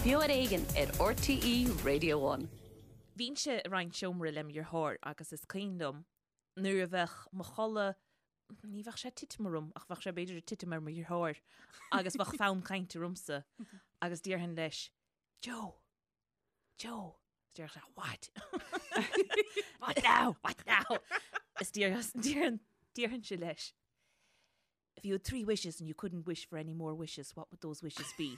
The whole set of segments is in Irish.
Beo ar Éigean ar RTÉ Radio One. Bhínnse ag roinnt seomra lem dheartháir agus is cuimhin liom nuair a bheadh mo chodladh, ní bheadh sé ag titim orm ach bheadh sé b'fhéidir ag titim ar mo dheartháir agus bheadh fonn cainte ormsa agus déarfainn leis, Joe! Joe! Is déarfadh sé, What? What now? What now? Is déarfainnse leis, If you had 3 wishes and you couldn't wish for any more wishes, what would those wishes be?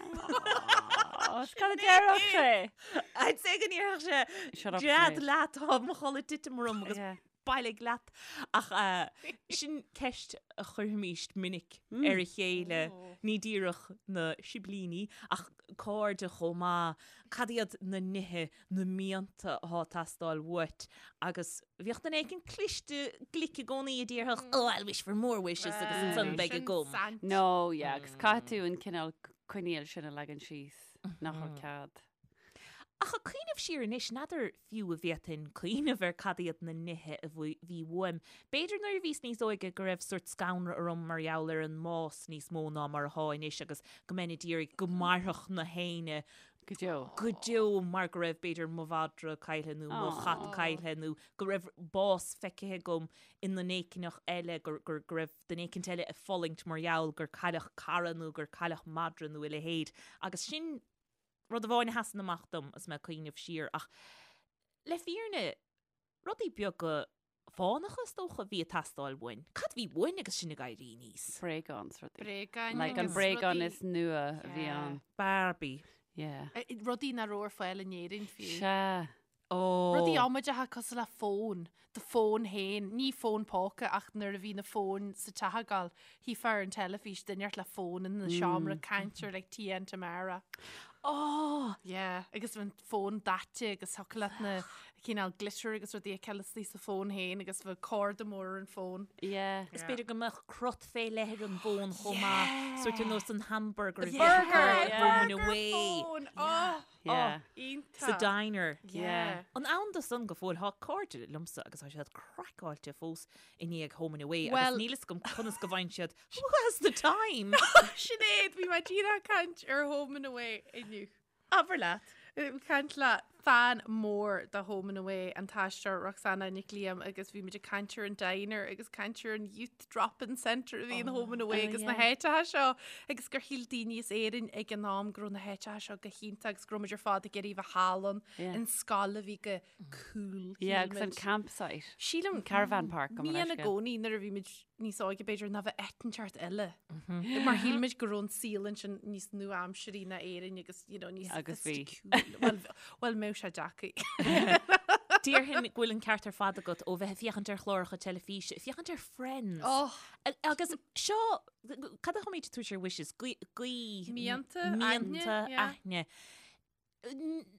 Is cad a déarfadh sé? I'd say go ndéarfadh sé, Shut up, Gread Sinéad. leat, tá mo chodladh ag titim orm agus Yeah. bailigh leat. Ach eh, sin ceist a chuirfimíst minic ar a chéile, ní díreach na siblíní ach cairde chomh maith, cad iad na nithe na mianta atá ag teastáil uait agus bhíodh duine éicint cliste glic i gcónaí a déarfadh oh I'll wish for more wishes agus ansan beidh agam. No, yeah, agus caithfidh tú an cineál coinníoll sin a leagan síos nach bhfuil cead. Ach ag cuimhneamh siar anois, n'fheadar fiú an bhféadfainn cuimhneamh ar cad iad na nithe a bhí uaim. B'fhéidir nuair a bhíos níos óige go raibh sórt scanradh orm mar gheall ar an mbás níos mó ná mar atá anois agus go mbeinn ag iarraidh go mairfeadh na héinne Go deo. Go deo mar go raibh b'fhéidir mo mhadra caillthe nó mo chat caillthe nó go raibh bás feicthe agam i nduine éicint eile, go raibh duine éicint eile ag fulaingt mar gheall gur cailleadh cara nó gur cailleadh madra nó a leithéid. Agus sin rud amháin a sheasann amach dom agus mé ag cuimhneamh siar. Ach le fírinne, rudaí beaga fánacha is dócha a bhí ag teastáil uainn. Cad a bhí uainn agus sinn ag éirí aníos? Bréagán is rudaí. Bréagáin Like an agus bréagán rudaí- is nua a bhí Yeah. ann. Barbie. Yeah. Eh, Rudaí nach raibh ar fáil in Éirinn fiú. Sea. Ó. Rudaí amaideacha cosúil le fón, do fón féin, ní fón póca ach nuair a bhí na fóin sa teach ag gabháil, chífeá ar an teilifís duine inteacht le fón ina seomra ag caint ar like Tia and Tamara. Ó! Yeah, agus an fón daite agus thiocfadh leat na cineál glitter agus rudaí a fheiceáil istigh sa fón féin agus bheadh corda mór ar an fón. Yeah. Is b'fhéidir go mbeadh crot fé leith ar an bhfón chomh maith, sórt ar nós an hamburger a bhí Burger! Home and Burger Away. phone! Oh! Yeah. Oh, iontach. Sa diner. Yeah. An ann do san go fóill, thá cairde liomsa agus tá siad craiceáilte fós i ndiaidh Home and Away agus Well- níl fhios agam conas go bhfaigheann siad Who has the time? Sinéad, bhí mé díreach ag caint ar Home and Away inniu. Abair leat. Ag caint le fan mór de Home and Away, an t-aisteoir Roxanna Nic Liam agus bhí muid ag caint ar an diner agus caint ar an Youth Drop-In Centre a bhí in Home and Away oh, agus na yeah. háiteacha seo agus gur shíl daoine as Éirinn ag an am go raibh na háiteacha seo go hiontach agus go raibh muid ar fad ag iarraidh bheith thall ann Yeah. an scoil a bhí go cool. Yeah, shíl agus an muid. campsite. Sílim Caravan park go Ní mbeadh i sé. gcónaí nuair a bhí muid níos óige b'fhéidir ná bheith áit inteacht eile. Mar shíl muid go raibh an saol ansin níos nua-aimsirí ná Éirinn agus you know, níos Agus bhí. sophisticiúil. Well, well mbeadh sé deacair. Déarfainn go bhfuil an ceart ar fad agat ó bheith ag féachaint ar chláracha teilifíse, féachaint ar Friends. Oh, Agus seo, cad a tháimid ag tabhairt ar wishes? Guí, guí, Mianta, aithne, mianta, yeah. aithne.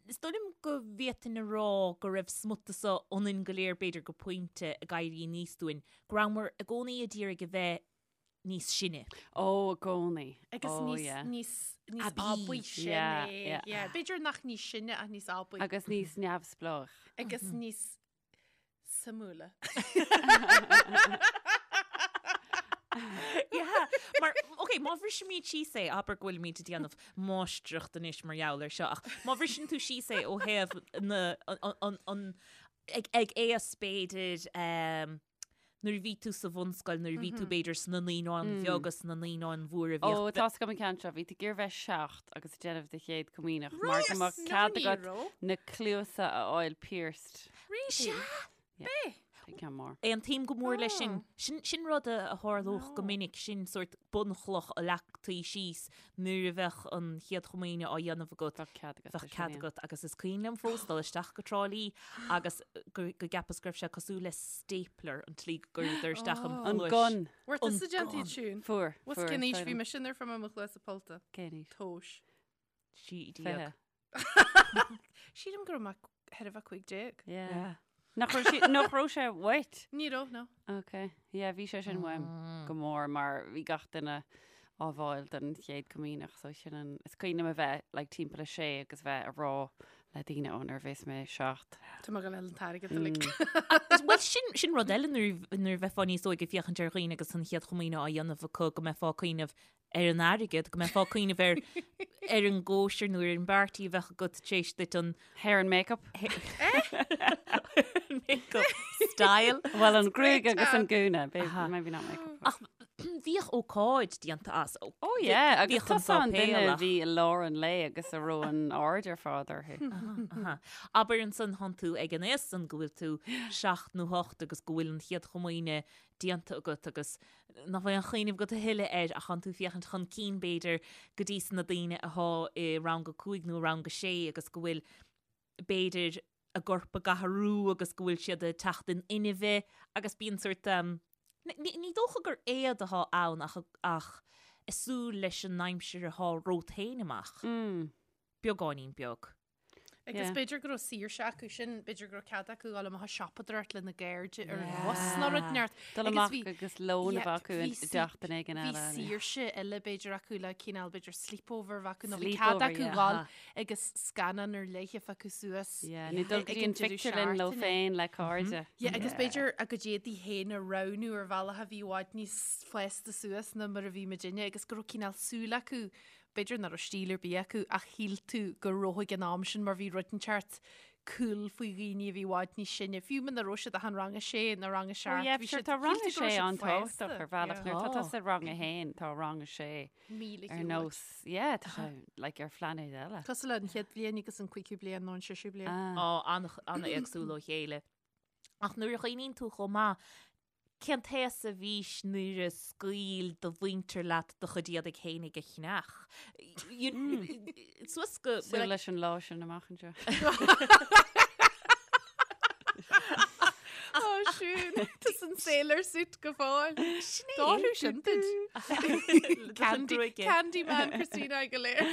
Is dóigh liom go bhféadfainn a rá go raibh smut de so ionainn go léir b'fhéidir go pointe ag éirí aníos dúinn, go rabhamar i gcónaí ag iarraidh a bheith níos sine. Ó, i gcónaí. Agus Ó, níos, yeah. níos, níos Aibí. aibí sin Yeah, é. yeah. Yeah. B'fhéidir nach níos sine ach níos aibí. Agus níos neamhspleách. Agus níos suimiúla. Yeah, mar, ok, má bhrisimid síos é, abair go bhfuilimid ag déanamh máistreacht anois mar gheall air seo, ach má bhriseann tú síos é ó thaobh na, an, an, an, ag, ag aos b'fhéidir, um, nuair a bhí tú sa bhunscoil, nuair a bhí tú b'fhéidir sna naíonáin bheaga, sna naíonáin mhóra, Ó, bhíodh tá's agam an ceann seo, bhí tú ag iarraidh bheith 7 agus ag déanamh do chéad comaoineach mar go mbeadh cead agat na cluasa a fháil pierced. Really? Sea! B'é? Sin ceann mór. Aontaím go mór leis sin. Sin, sin rud a a tharlódh go minic, sin sórt bunchloch a leagtaí síos nuair a bheadh an Chéad Chomaoine á dhéanamh agat. Bheadh cead agat. Bheadh cead agat agus is cuimhin liom fós dul isteach go Trá Lí agus go go gceapas go raibh sé cosúil le stapler an tslí go gcuireadar isteach an An chluais. gun. Bhfuair An tusa déanta gun. iad siún? Fuair. Bhfuil Fuair. cén aois bhí mise nuair a fuair mé mo chluasa pollta? Cén aois? Tomhais. 16. 20. Sílim go raibh mé thar a bheith 15. Yeah. Nach raibh sí- nach raibh sé uait? Ní raibh, no. Ok. Yeah, bhí sé sin uaim go mór mar bhí gach duine á bhfáil don chéad comaoineach so sin an is cuimhin liom a bheith like timpeall a sé agus bheith a rá le daoine ó nuair a bheas mé 7. Tá mé ag gabháil a fháil an t-airgead uilig. Bhuel sin sin rud eile nuair nuair a bheifeá níos óige ag féachaint ar dhaoine agus an chéad chomaoine á dhéanamh acu go mbeifeá ag cuimhneamh. ar an airgead, go mbeifeá ag cuimhneamh ar ar an gcóisir nó ar an bparty a bheadh agat tar éis duit an Hair and makeup. makeup style. Well, an gruaig agus an gúna, maybe not makeup. Ach bhíodh ócáid déanta as. Oh yeah, agus tusa an duine a bhí i lár an lae agus a raibh an aird ar fad orthu. Abair ansan thánn tú ag an aos san go bhfuil tú seacht nó hocht agus go bhfuil an chéad chomaoine déanta agat agus nach bhfuil aon chuimhneamh agat a thuilleadh air ach thánn tú ag féachaint chun cinn b'fhéidir go dtí sna daoine athá i rang a cúig nó i rang a sé agus go bhfuil b'fhéidir a gcorp ag athrú agus go bhfuil siad ag teacht in inmhe agus bíonn sórt ní ní dócha gur éad athá ann ach ach ag súil leis an aimsir athá romhat féin amach. Beagáinín beag. Agus b'fhéidir go raibh saoirse acu sin, b'fhéidir go raibh cead acu dul amach ag siopadóireacht lena gcairde ar an bhus nó rud inteacht. Dul amach agus lón a bheith acu i dteach duine éigin eile. Bhí saoirse eile b'fhéidir acu le cineál b'fhéidir sleepover a bheith acu nó bhí cead acu dul agus scannán ar leith a phiocadh suas. Nó dul go dtí an phictiúrlann leo féin le cairde. Yeah, agus b'fhéidir a gcuid éadaí féin a roghnú ar bhealach a bhí i bhfad níos fásta suas ná mar a bhí muidinne agus go raibh cineál súil acu B'fhéidir nach raibh stíl ar bith acu ach shíl tú go raibh ag an am sin mar bhí rud inteacht cool faoi dhaoine a bhí i bhfad níos sine, fiú muna raibh siad ach in rang a sé nó rang a seacht. Yeah, sure, tá rang a sé an-tábhachtach ar bhealach nuair atá tusa i rang a haon, tá rang a sé ar nós, yeah, tá sé like ar phláinéad eile. Cosúil le an chéad bhliain agus an cúigiú bliain nó an séú bliain. Á, an-éagsúil ó chéile. Ach nuair a chuimhníonn tú chomh maith, Cén t-aos a bhís nuair a scaoil do mhuintir leat do chuid éadaigh fhéinig a cheannach? Suas go. Súil leis an lá sin amach anseo. Ó siún, tá san sailor suit go fóill. Sin é. D'athrú sin duit. Candy, Candyman Christina Aguilera.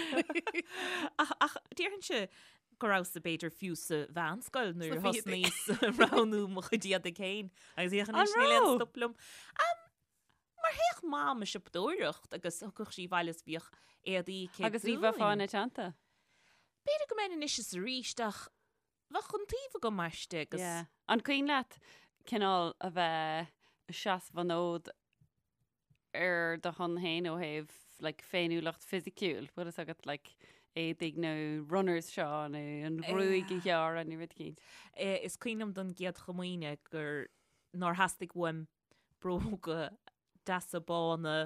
Ach déarfainnse go rabhas-sa b'fhéidir fiú sa mheánscoil nuair a thosnaíos roghnú mo chuid éadaigh féin agus féach anois níl aon stop liom. Mar théadh Mam ag siopadóireacht agus thiocfadh sí abhaile is bhíodh éadaí aici Agus ní bheifeá ina teannta? B'fhéidir go mbeinn anois is arís ach bheadh iontaoibh agam aisti agus. Yeah. An cuimhin leat cineál a bheith ag seasamh an fhóid ar do shon féin ó thaobh like, féiniúlacht fisiciúil, bhfuil fhios agat like, éadaigh nó runners seo nó an ghruaig a ghearradh nó rud éicint. Is cuimhin liom don gcéad chomaoine gur nár theastaigh uaim bróga deasa bána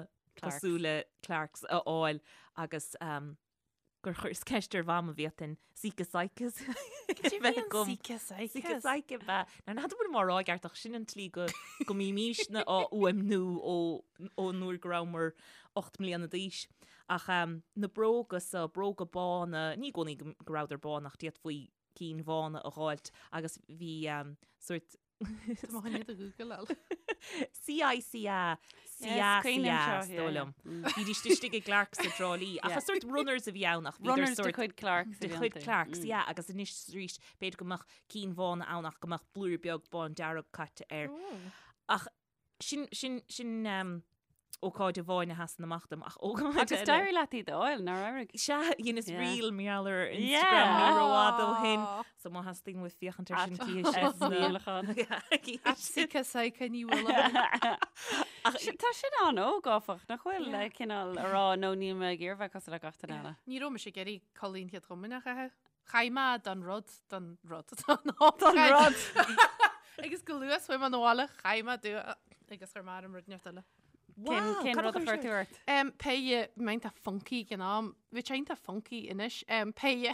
cosúil le Clarks a fháil agus um, gur chuireas ceist ar Mham an bhféadfainn Síce Saicas bheith agam. Síce Saicas. Síce Saice ab ea. Now n'fheadar an bhfuilim á rá i gceart ach sin an tslí go go mbímísne á fhuaimniú ó ón uair go rabhamar 8 mbliana d'aois. Ach um, na bróga so, bróga bána, ní i gcónaí go go rabhadar bán ach d'fhéadfaí cinn bhána a dh'fháilt agus bhí um, sórt Tá mo choinne do Google. CICA, CA, CA, is dóigh liom. Bhídís istigh i gClarks i dTrá Lí. Ach is sórt runners a bhí ann ach bhíodar Runners de chuid Clarks a bhí De chuid Clarks, yeah, agus anois is arís b'fhéidir go mbeadh cinn bhána ann ach go mbeadh blúire beag bándearg caite air. Ach sin, sin, sin ócáid amháin a sheasann amach dom ach ócáid Agus eile. d'éirigh leat iad a fháil, nár éirigh? Sea, dheineas Yeah. reel mar gheall ar Instagram ní rófhada ó shin. So má theastaíonn uaibh féachaint ar sin cífidh sibh na- Díolachán. At Síce Saice Ní Mhaoileoin. Tá sin an-óg áfach, nach bhfuil le cineál a rá nó níl mé ag iarraidh bheith cosúil le gach duine eile. Ní raibh mise ag iarraidh culaith an Chéad Chomaoineach a chaitheamh. Chaith mé don rud, don rud, don Don rud. Agus go luath chuaigh mé 'na bhaile, chaith mé dua agus chuir mé orm rud inteacht eile. Cén cén rud a chuir tú ort? Um, péire iontach funky ag an am, bhí sé iontach funky anois, um, péire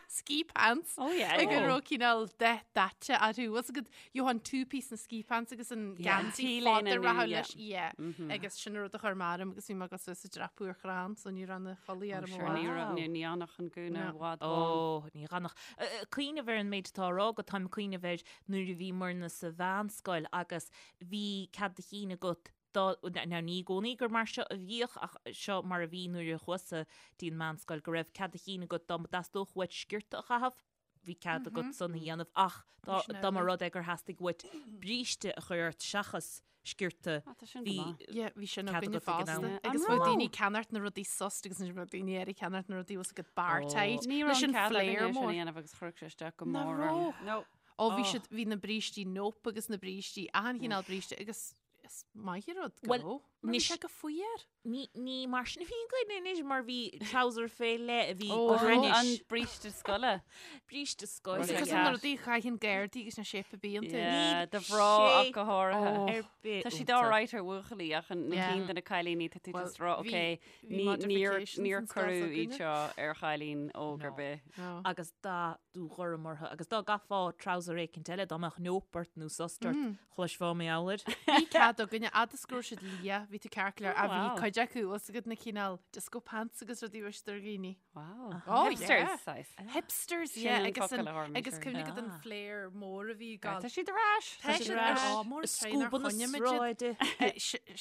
ski pants. Oh yeah. Ag an raibh cineál dath daite orthu. Was agat you an two piece na ski pants agus an geansaí T-léine fada nó, rachadh yeah. leis, yeah. Agus sin an rud a chuir mé orm agus bhí mé ag dul suas ag dreapadh ar chrann so ní raibh na culaith orm Sure, ní raibh, ní ní fhanfadh an gúna No. i bhfad bán. Ó, ní fhanfadh. Cuimhneamh ar an méid atá á rá agat, táim ag cuimhneamh ar nuair a bhíomarna sa mheánscoil agus bhí cead a chinn agat dá, now ní i gcónaí gur mar seo a bhíodh ach seo mar a bhí nuair a chuas-sa dtí an meánscoil, go raibh cead a chinn agat dá dteastódh uait sciorta a chaitheamh, bhí cead agat san a dhéanamh ach dá dá mba rud é gur theastaigh uait bríste a chur ort seachas sciorta Ah, tá sin go bhí maith. Yeah, bhí sin cead againne agat ag an am. fosta. Yeah. Agus An bheadh raibh? daoine ag ceannacht na rudaí sust agus ansin bheadh daoine eile ag ceannacht na rudaí was agat bar Oh. tight. Ní Leis raibh an an cead flare againne sin a mór. dhéanamh agus chuirfeadh sé isteach go Nach mór orm. raibh? No. Ó bhí siad, bhí na brístí nope agus na brístí, achan chineál bríste agus. Is maith an rud go raibh, mar bhí sé go fuar. Ní mar sin a bhí againn anois mar bhí trouser fé leith a bhí go hainnis. An bríste scoile. Bríste scoile. Is cosúil na rudaí a chaitheann gardaí agus na séip a bíonn tú. Yeah, do mhná ach go háirithe. Ar bith Tá siad alright ar bhuachaillí ach na cinn de na cailíní tá tú just rá ok níor níor cuireadh iad seo ar chailín óg ar bith. Agus dath dúghorm orthu agus dá gcaithfeá trouser éicint eile dá mbeadh neop ort nó sust ort Chloisfeá mar gheall air. Bhí cead againne, fhad is go raibh siad liath, bhí tú ceart go leor, ach bhí cuid acu, bhfuil 's agat na cineál disco pants agus rudaí a bhí siad ar dhaoine. Wow. Oh, Hipsters, yeah. saghas. Hipsters, Sin yeah, an agus focal an, a tharla agus sure. cuimhnigh agat an flare mór a bhí ag Tá gabháil. siad ar ais. Tá siad ar ais. Á, mór Is tréan ar scuaba na choinne muid iad. sráide. Eh,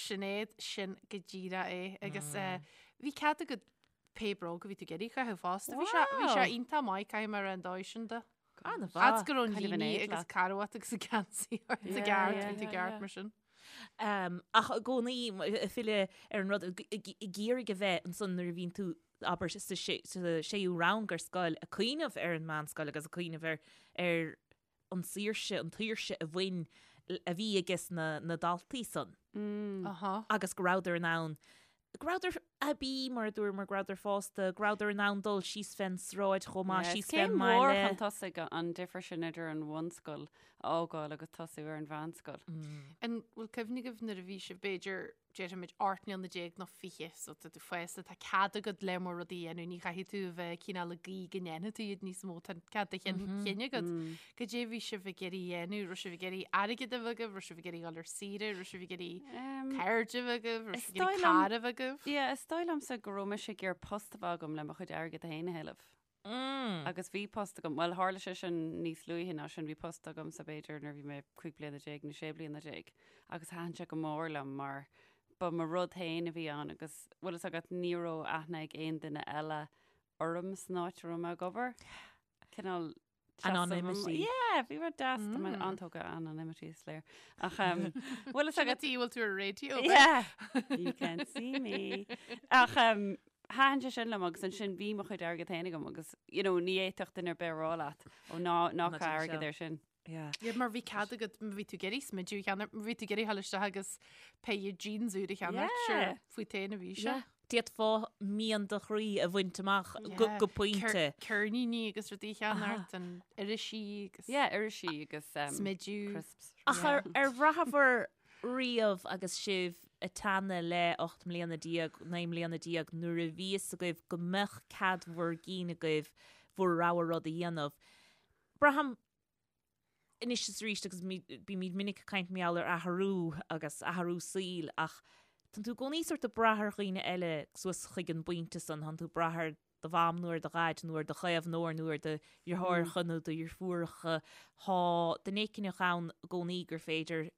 Sinéad, sin go díreach é. Agus eh, bhí cead agat pé bróg a bhí tú ag iarraidh a chaitheamh fosta. Bhí sé, bhí sé Wow. iontach maith, caithfidh mé a rá an dóigh sin de. An-mhaith. Fhad is go raibh an Kind of an líne éad agus leat. carbhat agus an geansaí ort i Yeah, gceart, yeah, bhí tú yeah, ceart yeah. mar sin. Um, ach i gcónaí ag filleadh ar an rud ag iarraidh a bheith ansan nuair a bhíonn tú abair sa séú rang ar scoil ag cuimhneamh ar an meánscoil agus ag cuimhneamh ar ar an saoirse, an tsaoirse a bhain a bhí ages na, na daltaí san. Mm. Aha. Agus go rabhadar in ann go rabhadar aibí mar a dúramar, go rabhadar fásta, go rabhadar in ann dul síos fén sráid chomh maith, Yeah, síos is céim fén mhór mbaile. chun tosaigh an difear sin idir an bhunscoil a fhágáil agus tosú ar an mheánscoil. An bhfuil cuimhne agaibh nuair a bhí sibh b'fhéidir déarfaimid 18 mbliana nó 20, so tá tú fásta, tá cead agat lear mór rudaí a dhéanamh, ní chaithfidh tú a bheith cineál ag guí go ndéanfaidh tú iad níos mó, tá cead do chinn agat. Cad é a bhí sibh ag iarraidh a dhéanamh? Raibh sibh ag iarraidh airgead a bheith agaibh? Raibh sibh ag iarraidh dul ar saoire? Raibh sibh ag iarraidh cairde a bheith agaibh? Raibh Is sibh ag iarraidh dóigh liom- carr a bheith agaibh? Yeah, is dóigh liomsa go raibh mise ag iarraidh post a bheith agam le mo chuid airgid féin a thuilleamh. Agus bhí post agam, bhuel tharla sé sin níos luaithe ná sin, bhí post agamsa b'fhéidir nuair a bhí mé 15 bliana nó 16 bliana agus thaitin sé go mór liom mar ba mo rud féin a bhí ann agus bhfuil fhios agat ní raibh aithne ag aon duine eile orm san áit a raibh mé ag obair. Cineál Anonymity. Yeah, bhí rud deas tá mé an-tógtha anonymity is léir. Ach um, bhfuil fhios agat Tí bhfuil tú ar raidió. Yeah, you can't see me. Ach um, thaitin sé sin liom agus ansin bhí mo chuid airgead féin agam agus you know, ní fhéadfadh duine ar bith a rá leat ó ná ná Ná caith déan airgead seo. ar sin. Yeah. Yeah, mar bhí cead agat, má bhí tú ag iarraidh smideadh a cheannacht, má bhí tú ag iarraidh dul isteach agus péire jeans úr a cheannacht, Yeah. sure, fút féin a bhí sé. Yeah. D'fhéadfá mian do chroí a bhaint amach go, Yeah. go pointe. Ceir- Ceirníní agus rudaí a cheannacht, an irisí agus Yeah, irisí agus um, smideadh. crisps. Ach ar, ar bhraitheabhair riamh agus sibh ag teannadh le 18 mbliana, 19 mbliana nuair a bhí fhios agaibh go mbeadh cead bhur gcinn agaibh bhur rogha rud a dhéanamh. Braithim anois is arís agus bímid minic ag caint mar gheall ar athrú agus athrú saoil ach tánn tú i gcónaí sórt ag brath ar dhaoine eile suas chuig an bpointe san, tánn tú ag brath ar do mham nó ar do dhaid nó ar do chaomhnóir nó ar do dheartháireacha nó do dheirfiúracha. Tá duine éicint ann i gcónaí gur féidir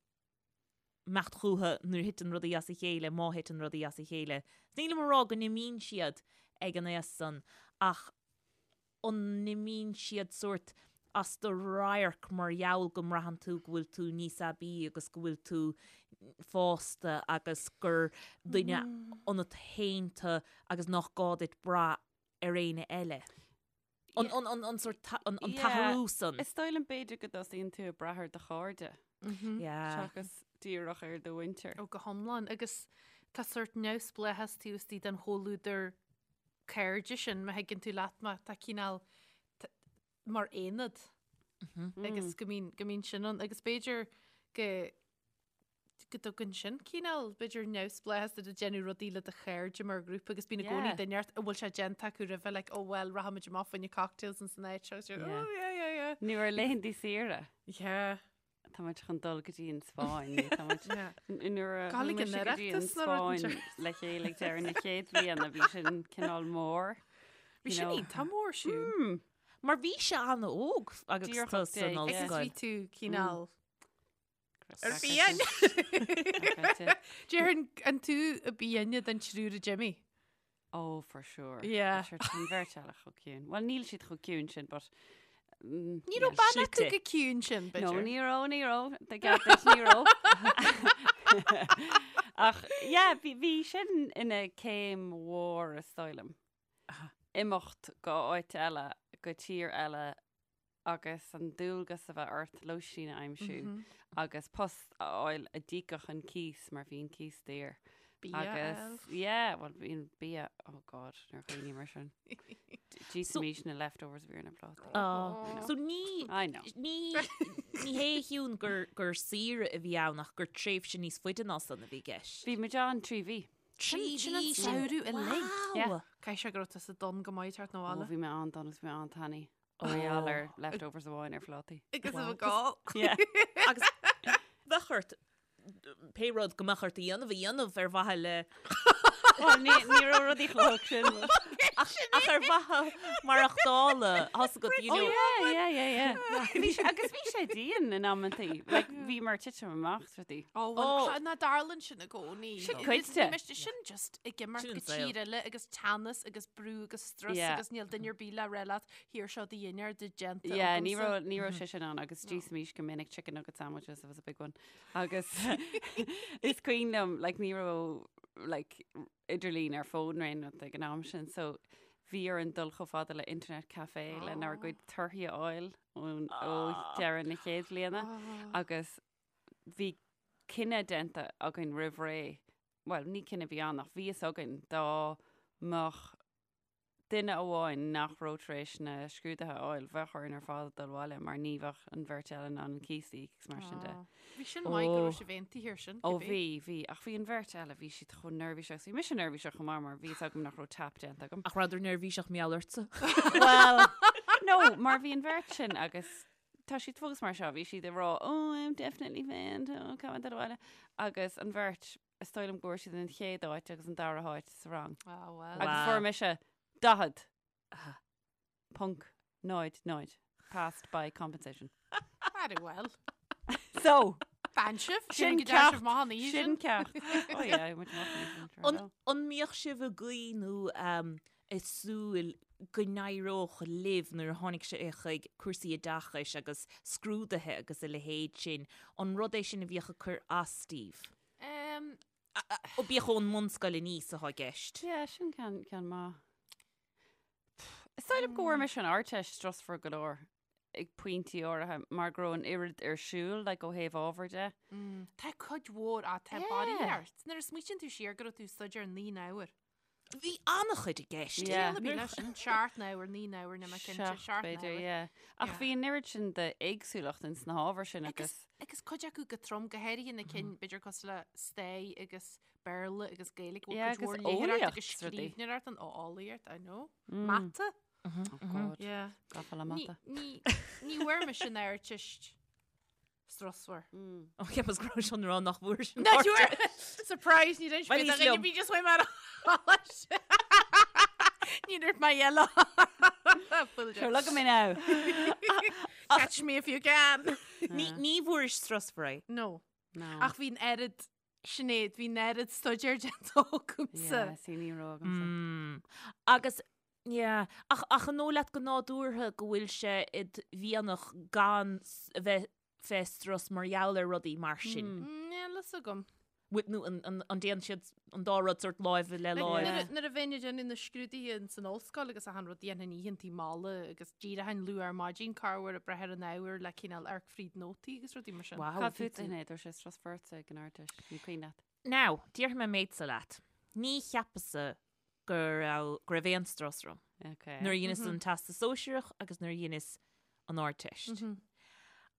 imeacht chucu nuair a thiteann rudaí as a chéile, má thiteann rudaí as a chéile. Nílim ag rá go n-imíonn siad ag an aos san ach an n-imíonn siad sórt as do radharc mar gheall go mbraitheann tú go bhfuil tú níos aibí agus go bhfuil tú fásta agus gur duine ionat féin tú agus nach gá duit brath ar éinne eile. An, an, an, an sórt ta- an, an t-athrú san. Is dóigh liom b'fhéidir go dtosaíonn tú ag brath ar do chairde Yeah. seachas díreach ar do mhuintir. Ó go hiomlán agus tá sórt neamhspleáchas taobh istigh den chomhluadar cairde sin má thuigeann tú leat mé tá cineál mar aonad agus go mbíonn go mbíonn sin ann agus b'fhéidir go go dtugann sin cineál b'fhéidir neamhspleáchas duit ag déanamh rudaí le do chairde mar ghrúpa agus bíonn i gcónaí Yeah. duine ort a bhfuil sé déanta acu roimhe like oh well rachaimid amach fá choinne cocktails in san áit seo agus you're, Yeah. oh yeah yeah yeah. Nó ar laethanta saoire. Yeah. Tá muid chun dul go dtí an Spáinn nó tá muid Yeah. nuair a Gabháil chuaigh ag an mise go dtí an Oireachtas nó rud Spáinn le chéile ag deireadh na chéad bhliana bhí sin cineál mór. Bhí you sin know. iontach mór siúd. Mar bhí sé an-óg agus Díreach tú san 18. Agus ollscoil. bhí tú cineál Ar Ar fiáin. Déarfainn an tú a ba shine den triúr a d'imigh. Oh, for sure. Yeah. Sure, tá an bheirt eile chomh ciúin. Well, níl siad chomh ciúin sin, but... Mm, Ní yeah. raibh bean acu Slite. go ciúin sin, No, b'fhéidir. ní raibh, ní raibh. Tá ceart duit, ní raibh. Ach, yeah, bhí, bhí sin ina céim mhór is dóigh liom. Imeacht go áit eile, go tír eile. agus an dualgas a bheith ort lóistín a aimsiú agus post a fháil a d'íocfadh an cíos mar bhí an cíos daor. Bia a Agus fháil. yeah, well bhí an bia, oh God, nuair a chuimhním air sin. D'íosfaimís na leftovers a bhí ar na plátaí. Oh. So ní I know. ní ní hé a Shiún gur gur saoire a bhí ann ach gur tréimhse níos faide ná san a bhí i gceist. Bhí muid ann 3 mhí. 3 Sin an mhí sin. samhradh uilig. Yeah. Wow. Caithfidh sé go raibh tusa donn go maith ag teacht Ó, 'na bhaile. bhí mé an-donn agus bhí mé an-tanaí. Mar gheall ar leftovers amháin ar phlátaí. Agus a bheith gá. Yeah. Agus bheadh ort pé rud go mbeadh ort a dhéanamh a dhéanamh ar mhaithe le Well, ní ní raibh rudaí chomh holc sin. ach ach ar mhaithe maireachtála thosaigh agat, you Oh know. yeah, yeah, yeah, yeah. Bhí sé, agus bhí sé dian in amantaí. Like, bhí mar titim amach is rudaí. Ó, well, Oh. tá- ná tarlaíonn sin i gcónaí. Sin cuid de. Ní miste sin just ag imeacht Sin go an saol. tír eile agus teannas agus brú agus strus Yeah. agus níl duine ar bith le rá leat Here seo do dhinnéar de déanta Yeah, ní agamsa. raibh ní raibh sé sin ann agus d'íosfaimis go minic chicken nugget sandwiches was a big one. Agus is cuimhin liom like ní raibh like idirlíon ar fón nó aon rud ag an am sin so bhí orainn dul chomh fada le internet cafe lenár gcuid torthaí a fháil ón ó deireadh na chéad bhliana agus bhí cinneadh déanta againn roimh ré, well ní cinneadh a bhí ann ach bhí fhios againn dá mbeadh duine amháin nach raibh tar éis na scrúduithe a fháil, bheadh orainn ar fad dul abhaile mar ní bheadh an bheirt eile in ann an cíos a íoc agus mar sin de. Bhí sin maith go raibh sibh aontaithe air sin. Ó bhí, bhí, ach bhí an bheirt eile, bhí siad chomh neirbhíseach agus bhí mise neirbhíseach chomh maith mar bhí fhios agam nach raibh tap déanta agam. Ach rabhadar neirbhíseach mar gheall ortsa. Well, no, mar bhí an bheirt sin agus tá siad fós mar seo, bhí siad ag rá, oh, I'm definitely failed, oh, caithfidh mé dul abhaile. Agus an bheirt Is dóigh liom go bhfuair siad an chéad áit agus an dara háit sa rang. Ah, well. Agus Wow. fuair mise 40 ponc 0 0 passed by compensation. Very well. So, Fan sibh? Sin Sin ceacht. ceacht. Maith an oíche sin sin. ceacht. Oh yeah, muid amach an oíche sin, An, sure. an mbíodh sibh ag guí nó um, ag súil go n-éireodh libh nuair a tháinig sé chuig cúrsaí oideachais agus scrúduithe agus a leithéid sin, an rud é sin a bhíodh ag cur as daoibh? Um, Ó bíodh ón mbunscoil aníos atá i gceist. Yeah, sin ceann ceann maith. Is dóigh liom go bhfuair mise an Ardteist strusmhar go leor ag pointí áirithe mar go raibh an oiread ar siúl like, ó thaobh ábhair de. mm, tá cuid mhór á tá Yeah. barraíocht. Nuair a smaoitíonn tú siar go raibh tú ag staidéar 9 n-uair. Bhí an-chuid i gceist. Yeah. Bhí leis sin seacht n-uair, 9 n-uair, níl mé cinnte, Seacht, seacht b'fhéidir, n-uair. yeah. Ach Yeah. bhí an oiread sin d'éagsúlacht ins na hábhair sin Agus agus agus cuid acu go trom, go háirithe na cinn b'fhéidir cosúil le Stair agus Béarla agus Gaeilge, bhfuil Yeah, cuid mhór agus léitheoireacht agus eolaíocht rudaí. scríbhneoireacht ann, ó eolaíocht, I know. Mata? Oh God, Yeah. gafa le Ní mata. ní ní bhfuair mise an Ardteist strusmhar. Ó cheapas go raibh sé chun rá nach bhfuair sin Not you Surprise, ní Well, níos liom. bí just mar Ní dúirt mé yellow. Sure, look at me now. Catch me if you can. Ní ní bhfuair strusmhar é. No. No. Ach bhí an oiread Sinéad, bhí an oiread staidéir déanta agamsa. Yeah, see, ní raibh agamsa. Mm. Agus yeah, ach ach an dóigh leat go nádúrtha go bhfuil sé id mhianach gan s- a bheith fé strus mar gheall ar rudaí mar sin. Níl fhios agam. Bhfuil- Nó an, an, an dtéann siad an dá rud sort láimh le Like, láimh. Nuair a- nuair a bheinn ag déanamh na scrúduithe in san ollscoil agus achan rud dhéanfainn oícheantaí malla agus d'éireochainn luath ar maidin corruair ag breith ar an ábhar le cineál amharc fríd nótaí agus rudaí mar sin. Wow, Cad bhí fút tú- Sinéad, raibh sé strusmhar ortsa ag an Ardteist, ní cuimhin leat. Now, déarfaidh mé méid-sa leat. Ní cheapas-sa go raibh go raibh aon strus orm. Okay. Nuair a dheineas an Teastas Sóisearach agus nuair a dheineas an Ardteist.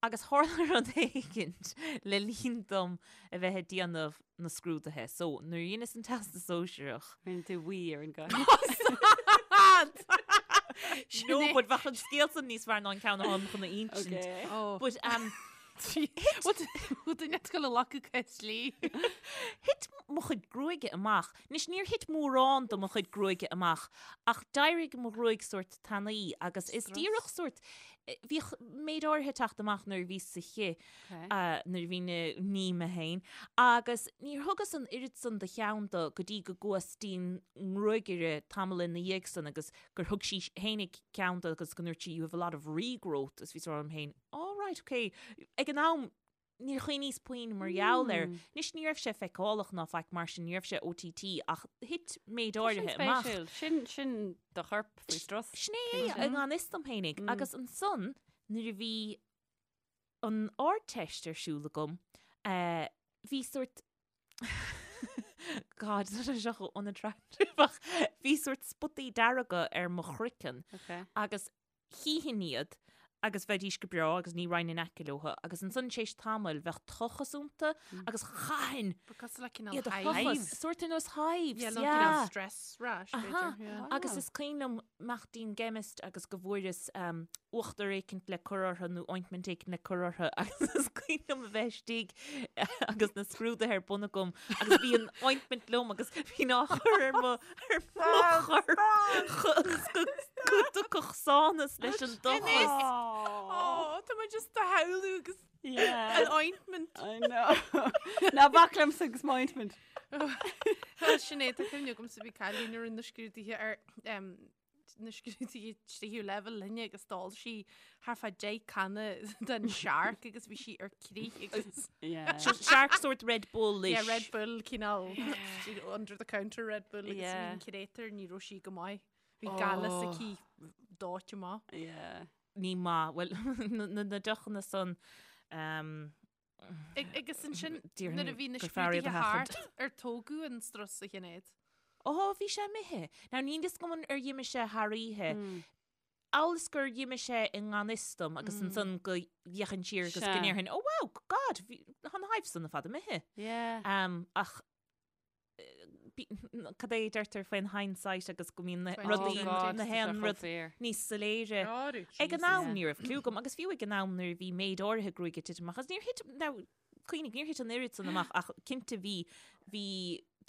Agus tharla rud éigint le linn dom a bheith ag déanamh na scrúduithe. So, nuair a dheineas an Teastas Sóisearach. Rinne tú wee ar an gcathaoir. No, but bheadh an scéal san níos fearr ná an ceann atá chun a insint. Okay. Oh. But, um, Bhfuil duine ag dul a ghlacadh cás dlí? Thit mo chuid gruaige amach. Anois, níor thit mórán de mo chuid gruaige amach, ach d'éirigh mo ghruaig sórt tanaí agus is díreach sórt, bhíodh méid áirithe ag teacht amach nuair a bhíos sa chith, nuair a bhínn ag ní mé féin, agus níor thugas an oiread san de cheann dó go dtí go gcuas dtí'n ngruagaire tamall ina dhiaidh san agus gur thug sí fhéinig ceann dó agus go ndúirt sí you have a lot of regrowth agus bhíos ag rá liom féin, oh right, ok. Ag an am, níor chuimhníos puinn mar gheall air. Anois ní raibh sé feiceálach ná faic mar sin, ní raibh sé OTT ach thit méid áirithe amach. Spéisiúil. Sin, sin do chorp faoi strus. Sin é é, i ngan fhios dom fhéinig. Agus ansan, nuair a bhí an Ardteist ar siúl agam, eh, bhí sórt God, tá sé seo chomh unattractive ach bhí sórt spotaí dearga ar mo chroiceann Okay. agus chífinn iad agus bheidís go breá agus ní raghainn in aice leo agus ansan tar éis tamaill bheadh tochas iontu agus chaithfinn Ba cosúil le cineál iad a hives. thochas, sórt ar nós hives, Yeah, nó yeah. cineál stress rash, Aha. b'fhéidir, yeah. Agus is cuimhin liom imeacht dtí'n gceimist agus go bhfuaireas um, uachtar éicint le cur orthu nó ointment éicint le cur orthu agus is cuimhin liom a bheith istigh agus na scrúduithe ar bun agam agus bhí an ointment liom agus bhínn á chur ar mo ar mo chorp go go dtiocfadh sánas leis an dtochas. Oh, tá mé just á shamhlú agus Yeah. an ointment. I know. Ná bac liomsa agus m'ointment. Sinéad, tá cuimhne agamsa bhí cailín a rinne na scrúduithe ar em, na scrúduithe tríú leibhéal linne agus d'ól sí thart fá 10 canna den Shark agus bhí sí ar crith agus Yeah. So Shark sort Red Bull-ish. Yeah, Red Bull cineál under the counter Red Bull agus Yeah. bhí an créatúr ní raibh sí go maith. Bhí gaileas aici dóite amach. Yeah. Ní maith. Bhuel, na, na, na deochanna san um, Agus ansin Déarfainn nuair a bhí na gur fearr iad a scrúduithe thart sheachaint. ar tógadh an strus a Shinéad. Ó, bhí sé imithe. Now, níl fhios agam ar dh'imigh sé thar oíche. Amhail is gur dh'imigh sé i ngan fhios dom agus ansan go bhféachfainn siar agus go Sea. ndéarfainn, oh wow, God, bhí tá na hives san ar fad imithe. Yeah. Um, ach cad é a deirtear faoin hindsight agus go mbíonn na rudaí Oh na haon rud níos soiléire. Ag an am ní raibh cliú agam agus fiú ag an am nuair a bhí méid áirithe gruaige ag titim amach agus níor thit now cuimhnigh níor thit an oiread san amach ach cinnte bhí bhí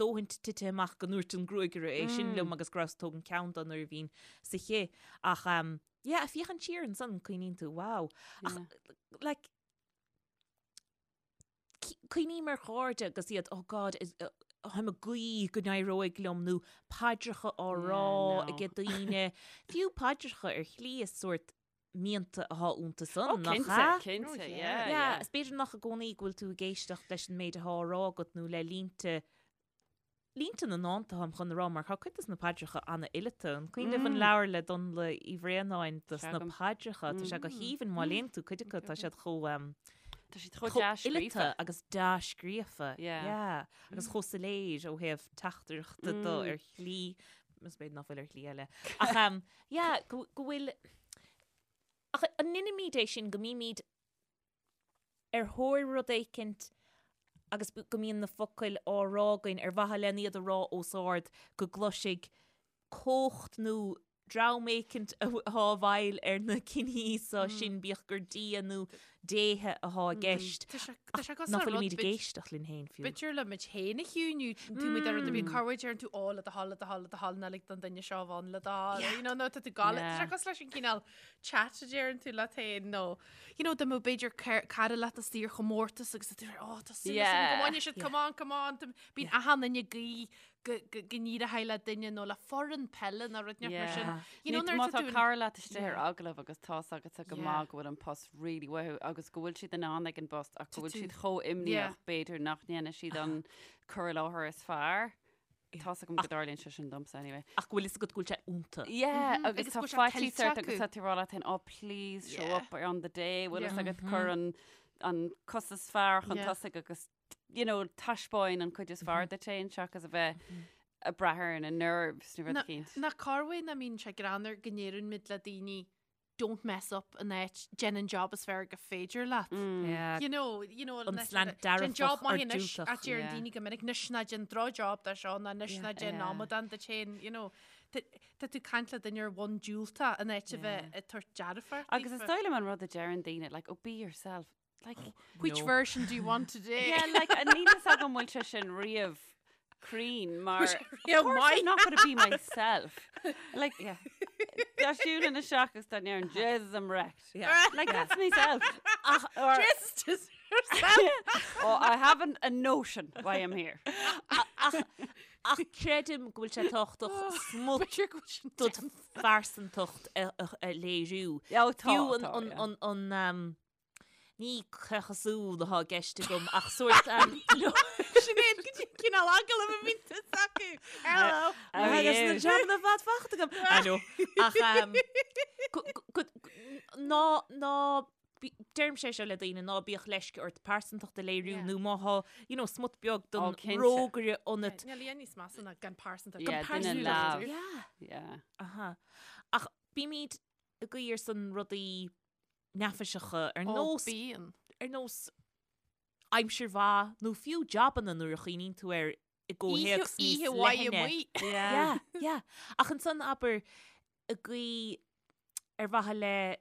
dóthain tite amach go ndúirt an gruagaire é sin liom agus go rabhas ag tógaint ceann dó nuair a bhínn sa chith ach um, yeah, féachaint siar ansan cuimhníonn tú wow ach like Cuimhním ar chairde agus iad, oh God, táim ag guí go n-éireoidh liom nó paidreacha á rá ag daoine. Fiú paidreacha ar shlí is sórt mianta atá iontu san, Oh, nach cinnte, ea? cinnte, yeah, Yeah, yeah. is b'fhéidir nach i gcónaí go bhfuil tú ag éisteacht leis an méid atá á rá agat nó le línte Línte na ndánta táim chun a rá mar tá cuid dos na paidreacha an-fhileata. An cuimhin libh an leabhar le Donnla Uí Bhraonáin dos na paidreacha? Tá sé go haoibhinn má léann tú cuid acu tá siad chomh Tá siad chomh chomh fhileata dea-scríofa. agus dea-scríofa. Yeah. Yeah. Agus chomh soiléir ó thaobh teachtaireachta de ar shlí, is b'fhéidir nach bhfuil ar shlí eile. Ach um, yeah, go go bhfuil Ach an ndeinimid é sin go mbímid ar thóir rud éicint agus go mbíonn na focail á rá againn ar mhaithe len iad a rá os ard go gcloisfidh cumhacht nó dream éicint atá i bhfeighil ar na cinní so sin, bíodh gur Dia nó déithe atá i gceist, Tá sé tá sé ach cosúil nach le rud bhfuilimid ag bit- éisteacht linn féin fiú. B'fhéidir le muid féin a chiúiniú, tú muid ar rud ar bith, corruair deireann tú ó le do thoil, le do thoil, le do thoil, ná lig don duine seo a bheith le do thoil, you know, nó tá tú ag gabháil, tá sé cosúil leis an cineál chat a deireann tú leat féin nó you know, dá mbeadh b'fhéidir cara leat istigh ar chomórtas agus tá tú oh, tá súil agam go mbainfidh siad, come on, come on, bíonn achan duine ag guí go n-éireoidh le duine nó le foireann peile nó rud inteacht mar sin. You know, nuair tá cara leat istigh ar agallamh agus tá's agatsa go maith go bhfuil an post really uathu agus go bhfuil siad in ann ag an bpost ach go bhfuil siad chomh imníoch b'fhéidir nach ndéanfaidh siad an cur i láthair is fearr. Tá's agam go dtarlaíonn sé sin domsa anyway. Ach go bhfuil fhios agat go bhfuil sé iontu. Yeah, agus Agus tá go bhfuil sé faitíos tuillte ort agus acu. tá tú ag rá leat féin, oh please show Yeah. up on the day, bhfuil fhios Yeah. agat cuir an, an cos is fearr chun Yeah. tosaigh agus you know, taispeáin an cuid is fearr duit féin seachas a bheith ag brath ar na nerves nó rud Na- eicínt. Nach corruair nach mbíonn sé greannmhar go ndeireann muid le daoine don't mess up in áit déan an job is fearr gur féidir leat. Yeah. You know, you know, An slant dearfach Déan job or maith anois diúltach. a deireann Yeah. daoine go minic anois ná déan droch-job de seo ná anois ná déan Yeah. amadán duit féin, you know. Tá tá tú ag caint le duine ar bhonn diúltach in áit a bheith ag tabhairt dearfach Agus is daofa. dóigh liom an rud a deireann daoine, like, oh, be yourself. Like, Which No. version do you want today? yeah, like, níl fhios agam bhfuil sé sin riamh cruinn mar Yeah, of course why? I'm not going to be myself. Like, yeah. Dá siúlfainn isteach agus dá ndéarfainn, Jesus, I'm wrecked. Yeah. Like, that's myself. Ach, or, Just just yourself. oh, I haven't a notion why I'm here. Ach, ach creidim go bhfuil sé tábhachtach smut B'fhéidir go bhfuil sin dod phearsantacht a, a, a léiriú. Yeah, oh, tá, Fiú an, tá, an, yeah. an, an, um, Ní caochasúil atá i gceist agam ach sórt Sinéad go dtí cineál agallamh a bhíonn tusa acu. Hello. How are Agus na you? jabanna fad fachta agam. I know. Ach um, go- go- go- Ná, ná, deirimse é seo le daoine, ná bíodh leisce ort pearsantacht a léiriú Yeah. nó má thá, you know, smut beag den Ó, cinnte. rógaire ionat. Níl aon níos measa ná gan pearsantacht. Yeah, Gan duine pearsantacht. leamh. Yeah. Yeah. Aha. Ach bímid ag guí ar son rudaí neafaiseacha ar Ó, nós, bíonn. ar nós aimsir mhaith nó fiú jabanna nuair a chuimhníonn tú air i gcomhthéacs níos Oíche mhaith leithne. amuigh. Yeah. Yeah, yeah. Ach ansan abair ag guí ar mhaithe le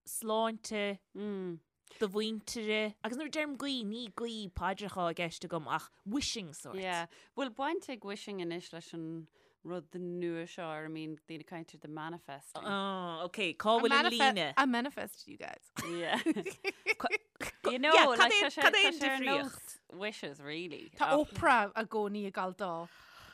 sláinte Mm. do mhuintire, agus nuair a deirim guí, ní guí paidreacha i gceist agam ach wishing sort. Yeah. Bhfuil baint ag wishing anois leis an rud nua seo ar a mbíonn daoine ag caint air the manifesting? Oh, ok, cá bhfuil an líne? I manifest you guys. Yeah. You know, Yeah, like, cad é- tá sé- cad é tá an sé ar nós difríocht? Wishes, really. Tá Ach- Oprah i gcónaí ag gabháil dó.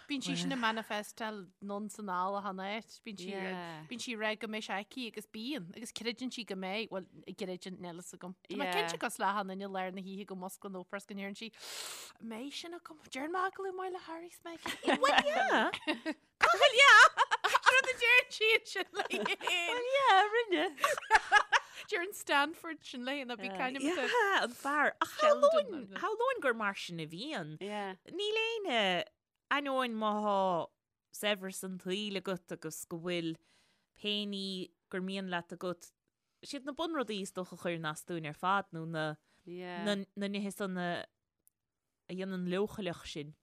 Bíonn sí sin ag manifestáil anonn 's anall achan áit. Bíonn sí Yeah. bíonn sí ag rá go mbeidh sé aici agus bíonn, agus creideann sí go mbeidh, bhuel, gcreideann, níl fhios agam. Tá mé Yeah. cinnte cosúil le achan duine i lár na hoíche go musclann Oprah is go ndeireann sí, "An mbeidh sin agam? Déarfaidh mé agallamh maith le Harry 's Meghan. Well, yeah. Well, yeah. Rud a deireann sí sin léi féin. Well, yeah, rinne. Deireann Stanford sin léi ná bí caint am Yeah, an fear. Ach Sheldon, shamhlóinn nó- shamhlóinn gur mar sin a bhíonn. Yeah. Níl éinne ainneoin má thá saibhreas an tsaoil agat agus go bhfuil pé ní gur mian leat agat, siad na bunrudaí is dócha a chuireann as dúinn ar fad nó na, Yeah. na, na nithe san a, a dhéanann leochaileach sinn.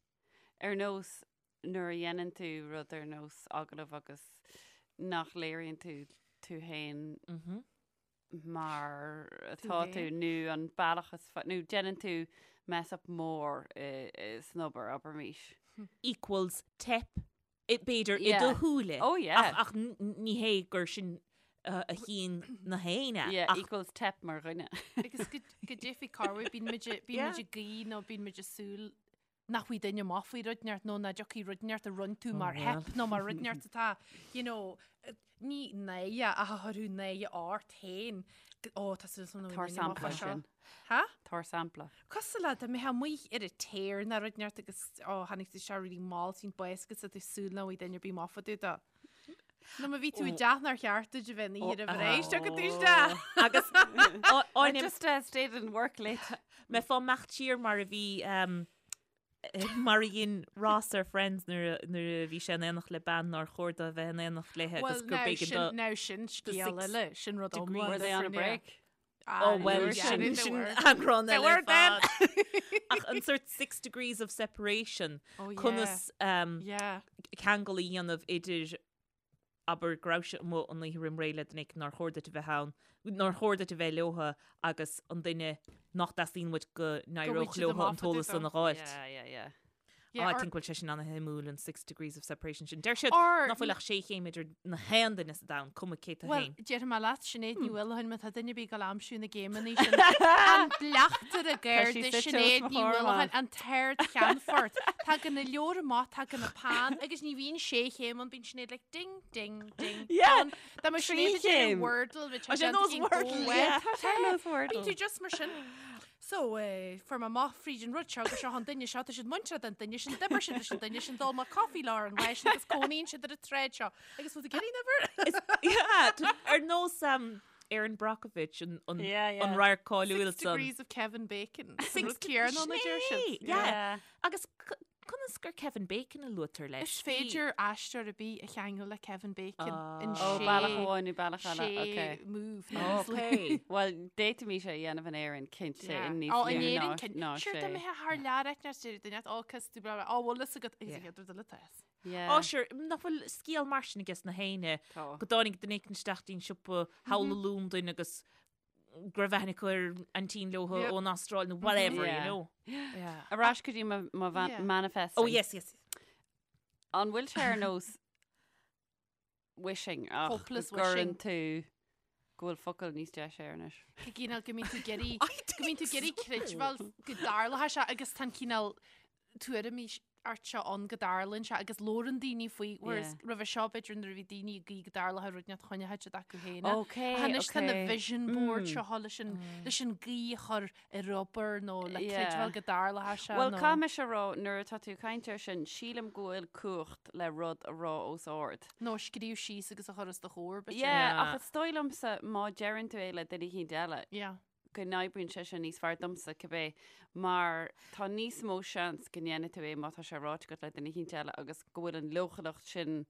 Ar nós nuair a dhéanann tú rud ar nós agallamh agus nach léiríonn tú tú féin Mm -hmm. mar Tú atá tú féin. nó an bealach is fa- nó déanann tú mess up mór i- i- san obair, abraimis. Equals teip, i- b'fhéidir, i Yeah. do shúile. Oh, yeah. Ach, ach n- n- ní hé gur sin uh, a chíonn na héinne. Yeah, ach equals teip mar dhuine. Agus go go dtiocfaidh corruair, bíonn muid a- bíonn Yeah. muid ag guí nó bíonn muid ag súil nach bhfaighidh duine amach faoi rud inteacht nó nach dtiocfaidh rud inteacht a rinne tú mar well. theip nó mar rud inteacht atá, you know, ní náire ach a chuirfeadh náire ort féin. Ó, tá súil agam nach Tabhair bhfaighidh duine amach sampla faoi seo. sin. Ha? Tabhair sampla. Cosúil le dá mbeifeá amuigh ar an tear nó rud inteacht agus ó, tháinig tú isteach really mall, bíonn baol agat tá tú ag súil nach bhfaighidh duine ar bith amach fá dtaobh de. Nó má bhí tú i dteach nár cheart duit a bheith an oíche roimh ré, tiocfaidh tú isteach. Agus I áinim just uh, stayed in work late. mbeifeá ag imeacht siar mar a bhí um, mar a dhein Ross ar Friends nuair a- nuair a bhí sé in éineacht le bean nár chóir dó a bheith in éineacht léi agus Well, gur now b'éigean sin, do now sin scéal six eile, sin rud degrees. iomlán Were they on a different, yeah. break? Ah, Oh well, yeah, sin they sin were. eagrán They eile were ar then. fad. Ach an sort six degrees of separation Oh, yeah. conas um, Yeah. ceangal a dhéanamh idir abair go raibh sé amuigh an oíche roim ré le duine éicint nár chóir duit a bheith ann, nár chóir duit a bheith leotha agus an duine nach dteastaíonn uait go n-éireodh siad leotha amach an fá dtaobh t-eolas san dó. a dh'fháilt. Yeah, yeah, yeah. Yeah, Ah, I or- think bhfuil sé sin ana-shuimiúil an six degrees of separation sin. Deir siad Or- nach bhfuil ach sé chéim idir na haon duine sa domhan, cuma cé tú Well, féin. déarfaidh mé leat, Sinéad Ní Mhaoileacháin, má tá duine ar bith ag gabháil a aimsiú na gcéimeanna sin. An bleachtaire Tá sí Garda suite os Sinéad mo Ní chomhair Mhaoileacháin, amach. an tArd-Cheannfort. Tagann na leabhair amach, tagann na pan, agus ní bhíonn sé chéim ann, bíonn Sinéad like ding, ding, ding. Yeah, done. Dá mbeadh trí Sinéad ag déanamh chéim. Wordle, bheadh Tá sé sé nós déanta Wordle, go well. yeah. Tá sé nós Wordle. Bíonn tú just mar sin. So, eh, fuair mé amach fríd an rud seo gur seo an duine seo, tá siad muinteartha don duine sin, d'oibir siad leis an duine sin, d'ól mé coffee leo an lá sin agus cónaíonn siad ar an tsráid seo. Agus bhfuil tú ag iarraidh an uimhir? Yeah, t- ar nós um, Erin Brockovich an, an, Yeah, yeah. an radharc cáiliúil Six san. degrees of Kevin Bacon. Six Rud céanna a deir siad. Sin é, yeah. Agus c- conas gur Kevin Bacon a luaitear leis? Is féidir aisteoir ar bith a cheangal le Kevin Bacon in Ó, sé bealach amháin nó bealach eile, sé ok. move. Okay. Well, d'fhéadfaimis é a dhéanamh in Éirinn, cinnte, in níos Ó, in lú Éirinn, ná- cinn. ná Sure, sé. dá mbeifeá thar lear ag neart deireadh duine, ó, cos tú blah, blah, ó, bhfuil fhios agat, agus Yeah. an chéad rud eile tá fhios. Yeah. Ó, sure, nach bhfuil scéal mar sin aige na héinne Tá. go dtáinig duine éicint isteach dtí'n siopa thall i Londain agus go raibh aithne acu ar aintín leotha Yep. ón Astráil nó whatever, you Yeah. know. Yeah. Ar ais go dtí mo- mo van- Yeah. manifesting. Oh, yes, yes. An bhfuil sé ar nós wishing ach Hopeless go gcuireann wishing. tú go bhfuil focal níos deise air anois. Go gcineál go mbíonn tú ag iarraidh I go mbíonn tú think ag iarraidh so. creidbheáil go dtarlóidh sé agus tá an cineál tuairimí. ort seo ann go dtarlaíonn sé agus labhrann daoine faoi, whereas roimhe seo b'fhéidir nuair a bhí daoine ag guí go dtarlódh rud inteacht choinneodh siad acu féin é. Ok, Ach anois tá na ok. vision board seo leis an, leis an guí a chur ar obair nó le Yeah. creidbheáil go dtarlódh sé Bhuel, nó. caithfidh mise a rá, nuair atá tú ag caint air sin, sílim go bhfuil cumhacht le rud a rá os ard. Nó a scríobh síos agus a chur os do chomhair, b'fhéidir. Yeah, Yeah. ach is dóigh liomsa má deireann tú é le duine eicínt eile, Yeah. go n-oibríonn sé sin níos fearr domsa, cibé, mar tá níos mó seans go ndéanfaidh tú é má tá sé ráite agat le duine eicínt eile agus go bhfuil an leochaileacht sin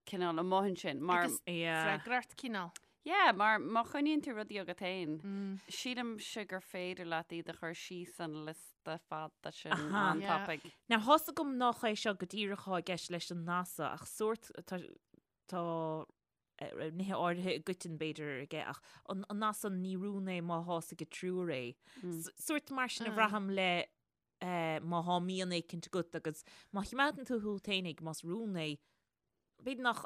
cineál amuigh ansin. Mar, Agus Yeah. freagracht cineál. yeah, mar má choinníonn tú rudaí agat féin, sílimse gur féidir leat iad a chur síos an liosta fada sin Aha. an Yeah. tapaidh. Now, thá's agam nach é seo go díreach atá i gceist leis an nath so, ach sórt, tá, tá nithe áirithe i gcoiteann b'fhéidir aige ach an nath san ní rún é má thá's ag triúr é. Sórt mar sin a bhraithim le má thá mian éicint agat agus má chimeádann tú chugat fhéinig más rún é, b'fhéidir nach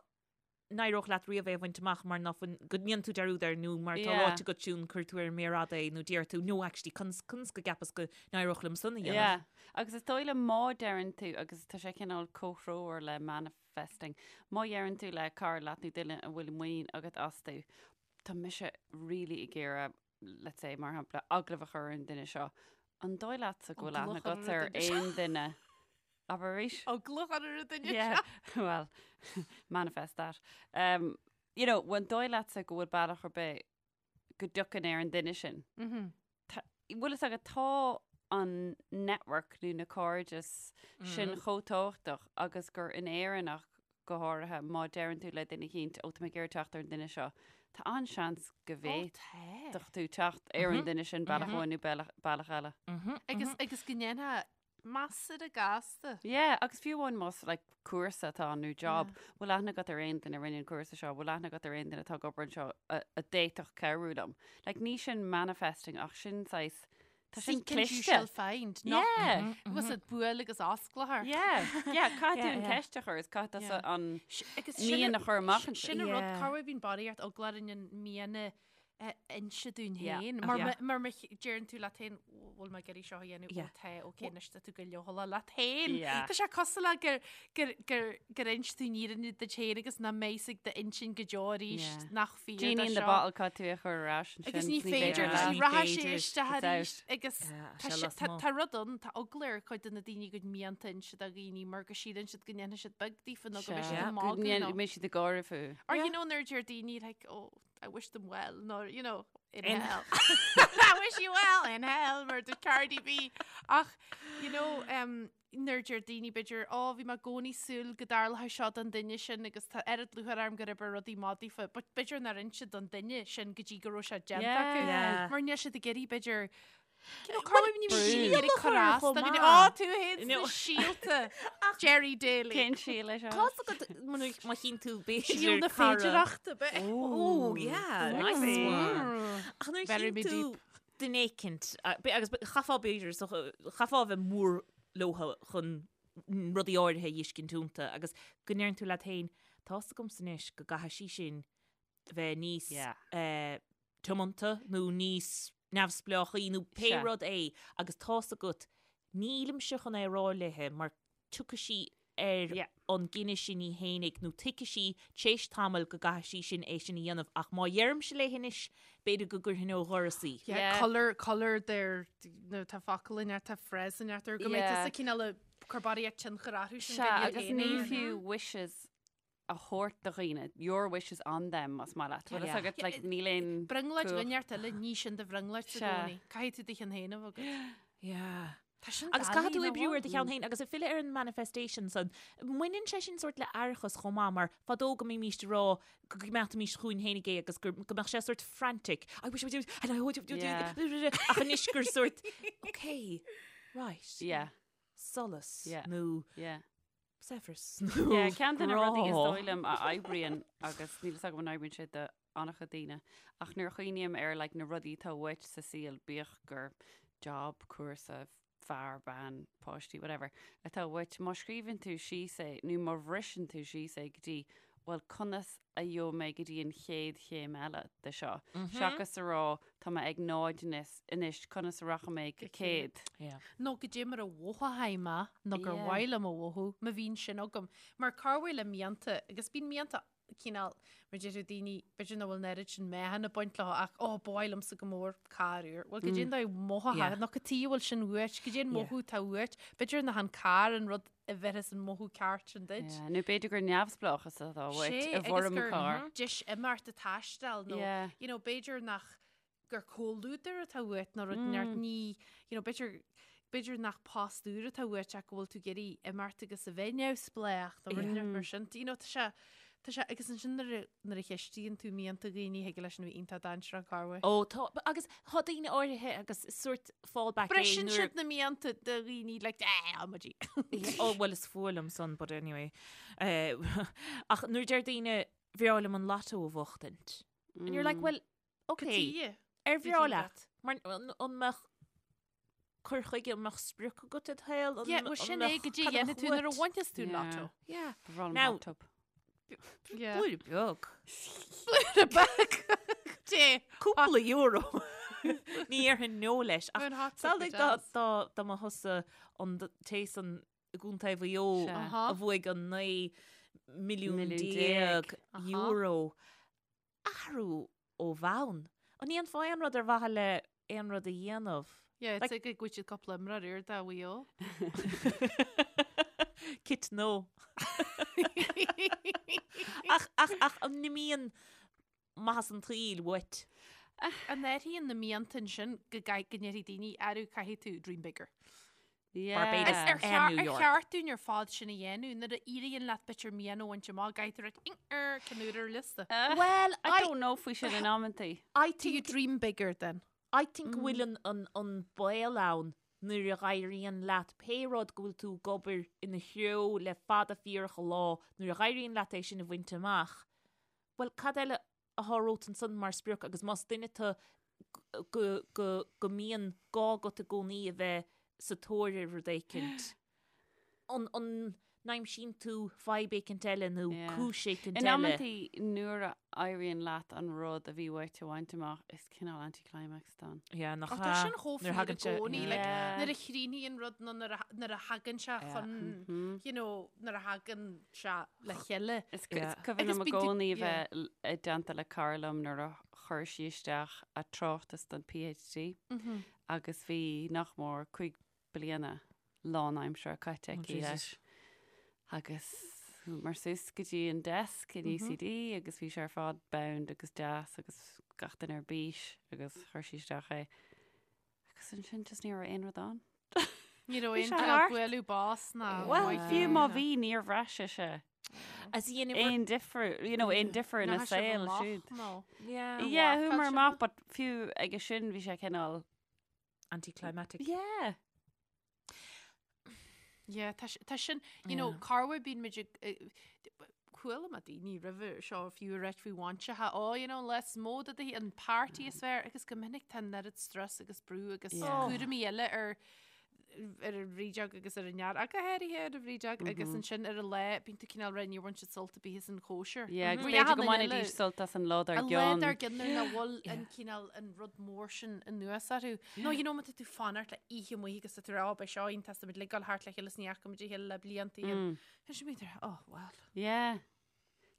n-éireodh leat riamh é a bhaint amach mar nach bhfuil, go ndéanann tú dearúd air nó mar tá ráite agat siún cuir tú ar an méar fhada é nó deir tú no actually conas conas go gceapas go n-éireodh liom san a dhéanamh. Yeah. Agus is dóigh liom má deireann tú, agus tá sé cineál comhthreomhar le manifesting, má dheireann tú le cara leat nó duine a bhfuil muinín agat astu, tá mise really ag iarraidh, let's say, mar shampla, agallamh a chur ar an duine seo, an dóigh leatsa go bhfuil aithne Agallamh agat ar ar an duine seo. aon duine? Abair arís? Agallamh a chur ar an duine Yeah, seo. well, manifest that. Um, you know, an dóigh leatsa go bhfuil bealach ar bith go dtiocfainn ar an duine sin? Bhfuil fhios agat tá an network nó na cairdeas sin chomh tábhachtach agus gur in Éirinn ach go háirithe má deireann tú le duine eicínt ó tá mé ag iarraidh teacht ar an duine seo, tá an-seans go bhféadfadh tú teacht ar an duine sin bealach amháin nó bealach eile. Agus agus go ndéanfá measartha gasta. Yeah, agus fiú amháin más like, cúrsa atá ann nó job, bhfuil aithne agat ar aon duine a rinne an cúrsa seo, bhfuil aithne agat ar aon duine atá ag obair anseo a, a d'fhéadfadh cabhrú liom. Like, ní sin manifesting ach sin saghas, tá sin Seek and you cliste. shall find. Nach Yeah. was it buail agus osclófar. Yeah, yeah, caithfidh tú Yeah, an yeah. ceist a chur is caithfidh Yeah. tusa an Agus mian a chur amach ansin. Sin an rud Yeah. cá bhfuil bíonn barraíocht eagla orainn an mian a inse dúinn Yeah. féin. Mar Yeah. mar má deireann tú leat féin bhfuil mé ag iarraidh seo a dhéanamh Yeah. ó tá ok anois tá tú go leochaileach leat féin. Yeah. Tá sé cosúil le gur gur gur gur inis tú an fhírinne duit féin agus nach mbeidh ag d'intinn go deo arís Yeah. nach fíor Genie do in the seo. bottle caithfidh tú é a chur ar ais ansin. Agus ní féidir leat. ní Ní rachaidh sé féidir. isteach It's arís out. agus Yeah, tá sé sé- lasmuigh. tá- tá rud ann tá eagla ar chuid de na daoine a gcuid mianta a inse do dhaoine mar go síleann siad go ndéanfaidh siad beag daofa nó go mbeidh siad Sea. ag Go magadh ndéan- nó- mbeidh siad ag gáire fúthu. Or Yeah. you know nuair a deir daoine like oh I wish them well nó you know in, In- hell. I wish you well in hell mar do Cardi B. Ach you know um, nuair a deir daoine b'fhéidir ó bhí mé i gcónaí ag súil go dtarlódh seo don duine sin agus tá oiread lúcháir orm gur oibrigh rudaí maith daofa, but b'fhéidir nár inis siad don duine sin go dtí go raibh sé déanta acu. Yeah. Mar níl siad ag iarraidh b'fhéidir You know, cá bhfuil ní brú. síol a chur as chomh do dhaoine. maith. Ó, tú féin No. sna síolta. Jerry Daly. Cén síol é seo? Tá's agat má chíonn tú b'fhéidir Síol na cara- féidireachta be. Oh, yeah, nice one. Ach nuair a Very chíonn tú deep. duine éicint, agus chaithfeá b'fhéidir, so chaithfeá a bheith mór leotha chun rudaí áirithe a fheiscint iontu agus go ndeireann tú leat féin, tá's agamsa anois go gcaithfidh sí sin bheith níos Yeah. eh, tiomanta nó níos neamhspleáchaí nó pé Sea. rud é agus tá's agat nílimse chun é a rá léithe mar tiocfaidh sí ar Yeah. an gcinneadh sin í fhéinig nó tuigfidh sí t'éis tamaill go gcaithfidh sí sin é sin a dhéanamh ach má dheirimse léi anois b'fhéidir go gcuirfinn ó dhoras í. Yeah, Yeah. colour, colour their, nó tá focal in tá phrase in ar go mbeidh Yeah. tusa cineál ag cur barraíocht tionchar orthu sin Sea, go iad agus féin ní a dhéanamh. fiú wishes a thabhairt do dhaoine, your wishes on them, más maith leat. Bhfuil fhios Yeah. agat, like, Yeah, níl aon Brionglóid cumhacht. dhuine eile, ní sin do bhrionglóid sa Sea. gcónaí. Caithfidh tú do cheann féin a bheith agat. Yeah. Tá sin Agus caithfidh tú doiligh, oibriú nach ar do cheann féin agus ag filleadh ar an manifestation san, mbaineann sé sin sórt le aireachas chomh maith mar fadó go mbímís ag rá go gcoimeádfaimís chugainn féinig é agus gur go mbeadh sé sórt frantic. I wish I would do and I would do Yeah. ach anois gur sórt okay, right. Yeah, Solas Yeah. nó yeah. saibhreas Yeah, nó ceann de na rudaí is grá. dóigh liom a oibríonn agus níl fhios agam an oibríonn sé do an-chuid daoine ach nuair a chuimhním ar like, na rudaí atá uait sa saol bíodh gur job, cúrsa, fear, bean, páistí, whatever, atá uait, má scríobhann tú síos é nó má bhriseann tú síos é go dtí. bhuel conas a gheobhaidh mé go dtí an chéad chéim eile de seo, seachas a rá tá mé ag náid anois, conas a rachaidh mé go 100. Nó goidé mar a mhothóchaidh mé nó gur mhaith liom a mhothú, má bhíonn sin agam. Mar corruair le mianta, agus bíonn mianta cineál, mar deir daoine, b'fhéidir nach bhfuil an oiread sin meáchan ag baint leo ach ó, ba mhaith liomsa go mór carr úr. Bhuel, goidé an dóigh a mothóchá, nó cad chuige a bhfuil sin uait, goidé an mothú atá uait, b'fhéidir nach an carr an rud a bheirfeas an mothú ceart sin duit. Yeah, nó b'fhéidir gur neamhspleáchas atá uait Sé, i agus bhfoirm gur carr. deis imeacht ag taisteal nó, Yeah. you know, b'fhéidir nach gur comhluadar atá uait nó rud inteacht ní, you know, b'fhéidir b'fhéidir nach post úr atá uait ach go bhfuil tú ag iarraidh imeacht agus a bheith neamhspleách nó rud inteacht mar sin. You know, tá sé Tá sé, agus ansin nuair a, nuair a cheistíonn tú mianta dhaoine, thig leis sin a bheith iontach dainséarach corruair. Ó, tá, agus tá daoine áirithe agus is sórt fallback é Briseann nuair. siad na mianta de dhaoine like, eh, amaidí. Ó, bhuel, is fuath liom san, but anyway. Eh, ach nuair deir daoine, bhreá liom an lotto a bhuachtaint. And you're like, well, okay, Cad chuige? ar bhreá leat? Mar an mbeadh cur chuige, an mbeadh sprioc agat i do shaol? Yeah, well sin é goidé a dhéanfaidh tú nuair a bhainfeas tú an lotto. Yeah. Ba bhreá liom Now- hot tub. Yeah. Blúire beag. Blúire beag. Dé. Cúpla euro. Ní dhéarfainn no leis. Ach An hot tub samhlaigh go dá deas. dá dá mba thusa an d- té san i gContae Mhaigh Eo Sea. Aha. a bhuaigh an 19 milliún Milliún déag. Aha. euro. Athrú ó bhonn. An ndéanfá aon rud ar mhaithe le aon rud a dhéanamh? Yeah, it's like go bhfuil siad cúpla imreoir úr do Mhaigh Eo. Kit no. Ach, ach, ach an n-imíonn maitheas an tsaoil uait? An n-athraíonn na mianta ansin go gcaith- go ndéarfaidh daoine, arú caithfidh tú dream bigger. Barbados Ar and cheart New ar York. cheart dúinn ar fad sin a dhéanamh nuair a éiríonn leat b'fhéidir mian a bhaint amach, caithfidh tú rá er ceann úr ar liosta. Well, I I, don't know faoi sin in amantaí. I Do you think, dream bigger then? I think go bhfuil an, an, an baol ann nuair a dh'éiríonn leat pé rud go bhfuil tú ag obair ina threo le fada fíorach an lá, nuair a dh'éiríonn leat é sin a bhaint amach, well, cad eile atá romhat ansan mar sprioc agus más duine tú go, go, go mbíonn gá agat i gcónaí a bheith sa tóir ar rud éicint, an, an n-aimsíonn tú fadhb éicint eile nó Yeah. cúis éicint In eile? amantaí nuair a éiríonn leat an rud a bhí uait a bhaint amach, is cineál anticlimax atá ann. Yeah, nach Ach tá ea? sin chomh Nuair a fíor i thagann sé- gcónaí, yeah. like, Yeah. nuair a chríochnaíonn rud nó nuair a, nuair a thagann sé Yeah. chun, you know, nuair a thagann sé le chéile. Is Yeah. cuimhin Agus liom i bíonn tú- gcónaí a yeah. bheith l- i dteannta le cara liom nuair a chuir sí isteach a tráchtas don PhD agus bhí nach mór 5 bliana lánaimseartha caite aici Jesus. leis. Agus chuamar suas go dtí an desk in UCD agus bhí sé ar fad bound agus deas agus gach duine ar bís agus chuir sí isteach é. Agus ansin just ní raibh aon rud ann. Ní raibh Bhí aon sé cineál thart. bualadh bos ná Well, maith fiú má ná- bhí níor bhraith sise As í in aon difear, you know, aon difear ina Nach raibh sibh saol amach, siúd. nó. Yeah. Yeah, mharcáil chuamar sibh amach, but fiú aige sin bhí sé cineál Anticlimactic. Yeah. Yeah, tá si- tá sin, you know, Yeah. corruair bíonn muid ag, eh, chuala mé daoine roimhe seo fiú ag ráit faoi bainseacha, oh, you know, is mó de do an party is fearr agus go minic tá an oiread strus agus brú agus Yeah. cúraimí eile ar ar an bhrídeog agus ar an fhear, ach go háirithe ar an bhrídeog agus ansin ar an lá bíonn tú cineál rá níor bhain siad sult ar bith as an chóisir. Yeah, agus Mar b'fhéidir go achan duine mbainfidís eile- sult as an lá dár An lá gcionn. dár gcionn nuair nach bhfuil an cineál an rud mór sin anuas orthu. Nó you know má tá tú fanacht le oíche amuigh agus tá tú rá, oh, beidh seo iontach, tá muid ag dul thart le chéile is ní fhaca muid a chéile le blianta. Tá sé bíonn oh well. Yeah.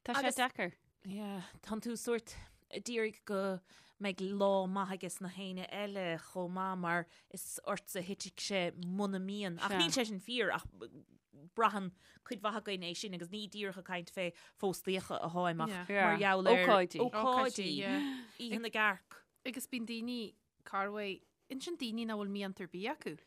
Tá sé Agus- deacair. Yeah, tánn tú sórt ag iarraidh go mbeidh lá maith aige na héinne eile chomh maith mar is ortsa a thitfidh sé muna mbíonn. Ach Sea. níl sé sin fíor ach braitheann cuid mhaith againn é sin agus ní díreach ag caint fé phóstaíocha atháim ach Yeah. Yeah. mar gheall ar Ócáidí. ócáidí, Ócáidí, yeah. Oíche na gCearc. Agus bíonn daoine corruair, ansin daoine nach bhfuil mianta ar bith acu.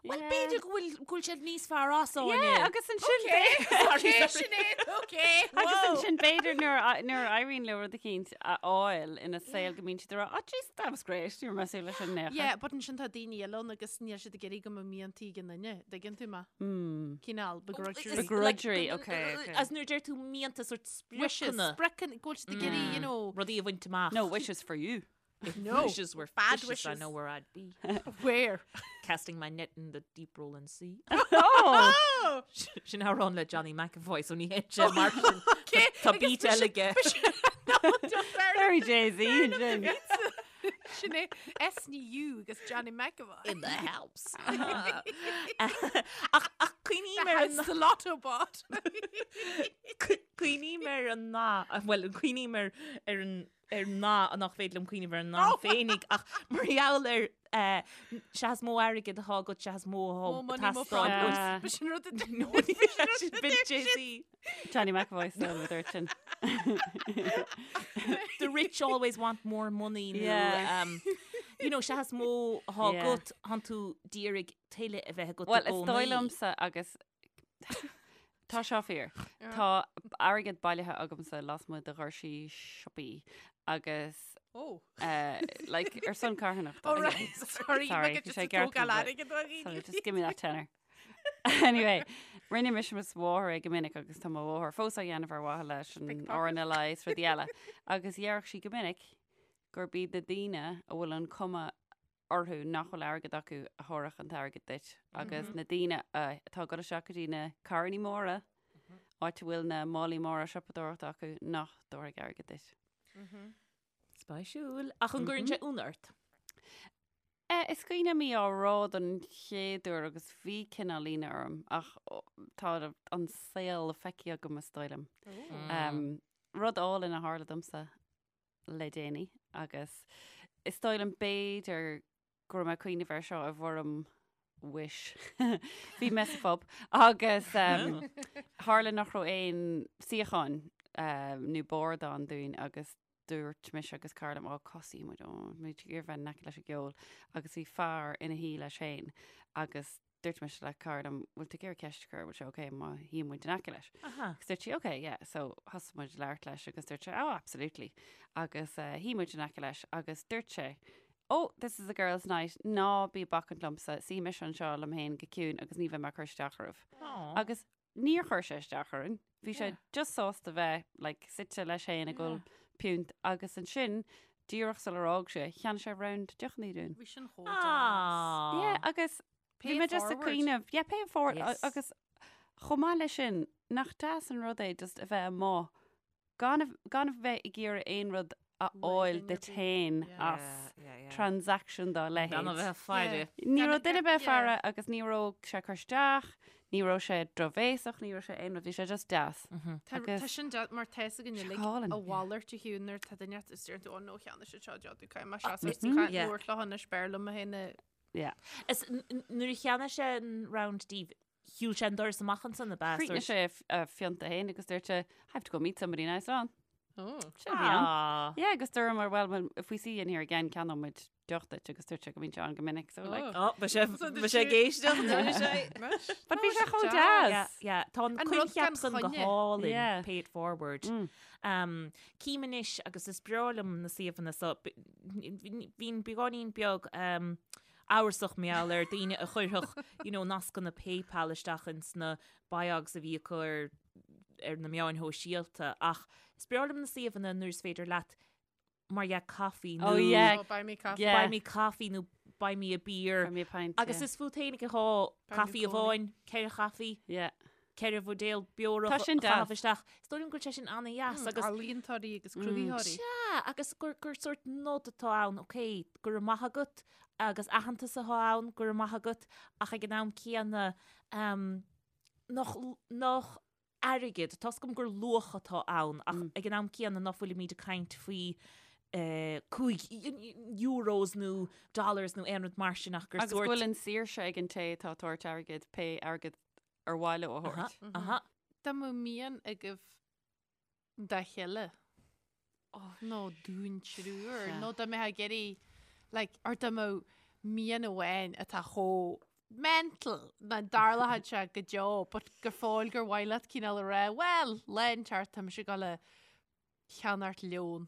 Well, b'fhéidir go bhfuil go bhfuil siad níos fearr as Yeah, Áine. agus ansin Okay, Sinéad, okay. Agus ansin b'fhéidir nuair a- nuair a éiríonn leo rud eicínt a fháil ina saol go mbíonn siad ag rá, oh jeez, that was great, ní raibh mé ag súil leis sin in aon chor. Yeah, but ansin tá daoine eile ann agus níl siad ag iarraidh go mbeadh miantaí ag an duine, dtuigeann tú mé? Hmm. Cineál begrudgery. Begrudgery, okay, okay. As nuair deir tú mianta sort Wishes, spriocanna. spriocanna, go bhfuil siad ag iarraidh, you know, Rudaí a bhaint amach. No, wishes for you. If No. wishes were Bad fishes, I wishes. know where I'd be. Where? Casting my net in the deep rolling sea. Oh! Sin amhrán le Johnny McEvoy, so ní hé sé mar sin. Okay, Tá agus beat bhí eile aige. Very Jay-Z sin. Sin é SNU agus Johnny McEvoy. In the house. Ach ach cuimhním ar an The lotto bot. Cuimhním ar an nath, bhuel, cuimhním ar ar an ar an nath nach féidir liom cuimhneamh ar an nath féinig ach mar gheall ar eh, sea is mó airgead atá agat, sea is mó Mo atá money, mo teastáil problems. uait. Ba sin rud a No, ní bhí sin bit Jay-Z. Johnny McEvoy still a dúirt sin. The rich always want more money nó Yeah. um, you know, sea is mó atá Yeah. agat, tánn tú d'iarraidh tuilleadh a bheith agat i Well, is dóigh gcónaí. liomsa agus tá seo fíor. Tá airgead bailithe agamsa lasmuigh de dhoirsí siopaí agus Oh. eh, like, ar son carthanachta. Oh, right. Sorry, Sorry, look at bhí just sé a tógáil ceart airgead ó dhaoine. Sorry, just give me that tenner. Anyway, rinne mise is mo mháthair é go minic agus tá mo mháthair fós á dhéanamh ar mhaithe leis an Pickpocket. RNLI is rudaí eile. Agus déarfadh sí go minic gurb iad na daoine a bhfuil an cuma orthu nach bhfuil airgead acu a thabharfadh an t-airgead duit agus na daoine atá ag dul isteach go dtí na carrannaí móra, áit a bhfuil na málaí móra siopadóireachta acu, nach dtabharfaidh airgead duit. Spéisiúil. Ach an gcuireann sé ionadh ort? Is cuimhin liom í á rá don chéad uair agus bhí cineál ionadh orm ach tá an saol feicthe agam is dóigh liom. Rud álainn a tharla domsa le déanaí agus is dóigh liom b'fhéidir go raibh mé ag cuimhneamh air seo i bhfoirm wish. Bhí mé sa phub agus tharla nach raibh aon suíocháin nó bord ann dúinn agus dúirt mise agus cara liom, ó cá suífidh muid, ó muid ag iarraidh bheith in aice leis an gceol agus bhí fear ina shuí leis féin agus dúirt mise le cara liom, bhfuil tú ag iarraidh ceist a chur, bhfuil sé ok má shuíonn muid in aice leis? Aha. Agus dúirt sí, ok, yeah, so thosaigh muid ag labhairt leis agus dúirt sé, oh, absolutely. Agus uh, shuigh muid in aice leis agus dúirt sé, oh, this is a girls' night, ná bí ag bacaint liomsa, suífidh mise anseo liom féin go ciúin agus ní bheidh mé ag cur isteach oraibh. Aw. Agus níor chuir sé isteach orainn. Bhí sé just sásta bheith like, suite leis féin ag ól piúnt agus ansin díreach sular fhág sé, cheannaigh sé round deochanna dúinn. Bhí sin chomh deas. Aw. Yeah, agus Pay bhí mé just ag forward. cuimhneamh, yeah, pay it forward, Yes. agus chomh maith leis sin, nach deas an rud é just a bheith amuigh gan a, gan a bheith ag iarraidh aon rud a fháil duine duit ar bith. féin Yeah. as transaction dá Gan a leithéid. bheith ag faire. Ní Gan raibh a duine bheith- bheith yeah. faire agus ní raibh sé ag cur isteach, ní raibh sé drochbhéasach, ní raibh sé aon rud, bhí sé just deas. Tá Agus- tá sin deas mar tá fhios againn Sé uilig álainn, a yeah. mhalairt a Shiún nuair tá duine is deireann tú, "Ó, no, cheannaigh siad seo deoch, caithfidh mé seasamh sa chaint Yeah. labhairt leo anois b'fhearr liom mé féin a Yeah. Is nuair a cheannaigh sé an round daoibh, shiúil sé an doras amach ansan ab ea? Chríochnaigh sé a phionta féin agus dúirt sé, I have to go meet somebody now, so on. Oh. Sin a bhí ann. Ah. Yeah, agus dúramar, well, well, if we see you in here again, ceannóidh muid deoch duit agus dúirt sé go mbíonn sé ann go minic, so like. Oh, ba sé So ba sé did ag éisteacht, dúirt sé. But bhí sé chomh Yeah, deas. yeah. Tá an An rud coincheap gan san go choinne. hálainn, Yeah. pay it forward. Mm. Um, Cím anois agus is breá liom na suíomhanna so, bhínn beagáinín beag um, amhrasach mar gheall ar daoine a chuirfeadh you know, nascanna PayPal isteach ins na biogs a bhí acu ar, ar na meáin shóisialta ach is breá liom na suíomhanna nuair is féidir leat mar dhea coffee nó Oh, yeah. Oh, buy me coffee. Yeah. buy me coffee nó buy me a beer. Buy me a pint, Agus yeah. is fút fhéinig atá Buy me caife cónaí. amháin, ceithre chaife, Yeah. ceithre bhuidéal beorach Tá sin a chaitheamh deas. isteach. Is dóigh liom go bhfuil sé sin an-dheas agus Ealaíontóirí agus cruthaitheoirí. Sea, agus gur, gur sórt nod atá ann, ok, go raibh maith agat, agus aitheantas atá ann, go raibh maith agat, ach ag an am céanna, um, nach, nach airgead, tá's agam gur luach atá ann, ach ag an am céanna ná fuilimid ag caint faoi eh, 5 euros nó dollars nó aon rud mar sin ach gur Agus go sórt bhfuil an saoirse ag an té atá ag tabhairt airgid pé airgead ar mhaith leo a Aha, thabhairt. aha. Dá mbeadh mian agaibh dá chéile nó dúinn triúr Sea. nó dá mbeifeá ag iarraidh like, or dá mbeadh mian amháin atá chomh mental nach dtarlódh sé go deo but gur fóill gur mhaith leat cineál a rá, well, lá inteacht tá mise ag dul a cheannacht leon.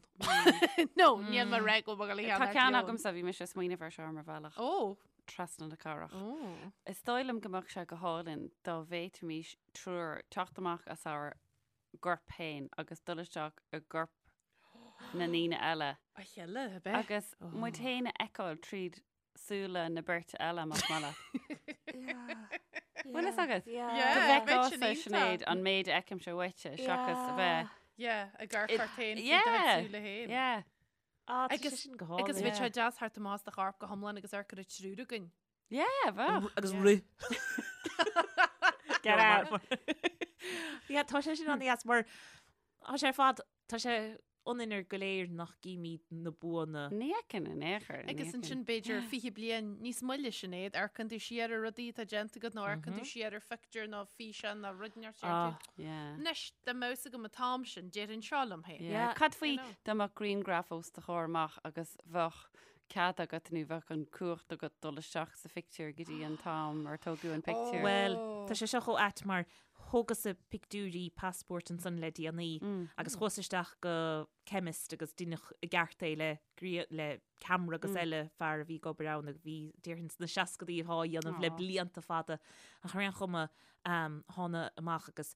No, níl mé ag rá go bhfuil mé ag dul a Tá cheannacht ceann leon. agamsa, bhí mise ag smaoineamh air seo ar mo bhealach Ó, trasna na cathrach. ó. Is dóigh liom go mbeadh sé go hálainn dá bhféadfaimis triúr teacht amach as ár gcorp féin agus dul isteach i gcorp na ndaoine eile. A chéile, ab ea? Agus muid féin a fheiceáil tríd súile na beirte eile, más maith leat. Bhfuil fhios agat? Go Yeah, bheadh sin bhfeiceása, iontach. Sinéad, an méid a fheicimse uaitse seachas a bheith. Yeah, ag amharc ort féin faoi do chuid súile féin. Yeah. Ah, tá Agus- sé sin go hálainn. Agus bheadh sé deas theacht amach as do chorp go hiomlán agus amharc ar an triúr againn. Yeah, bheadh. Agus rith. Get out. Yeah, tá sé sin an-deas mar tá sé ar fad, tá sé ionainn ar go léir nach gcímid na buanna. Ní fheiceann in aon chor. ní Agus fheiceann. ansin b'fhéidir 20 bliain níos moille Sinéad, amharcann tú siar ar rudaí atá déanta agat nó amharcann tú siar ar phictiúr nó físeán nó rud inteacht Ah. Yeah. Anois, dá mbeadh fhios agam an t-am sin, déarfainn seo liom féin. Yeah. Yeah. Cad faoi You know. dá mbeadh grianghraf os do chomhair amach agus bheadh cead agat nó bheadh an cumhacht agat dul isteach sa phictiúr go dtí an t-am ar tógadh an pictiúr. Bhuel, tá sé seo chomh ait mar thógas-sa pictiúirí passport ansan le déanaí agus chuas isteach go chemist agus deineadh i gceart é le le ceamara agus eile fear a bhí ag obair ann agus bhí déarfainn sna seascadaí atá á dhéanamh le blianta fada ach ar aon chuma thána amach agus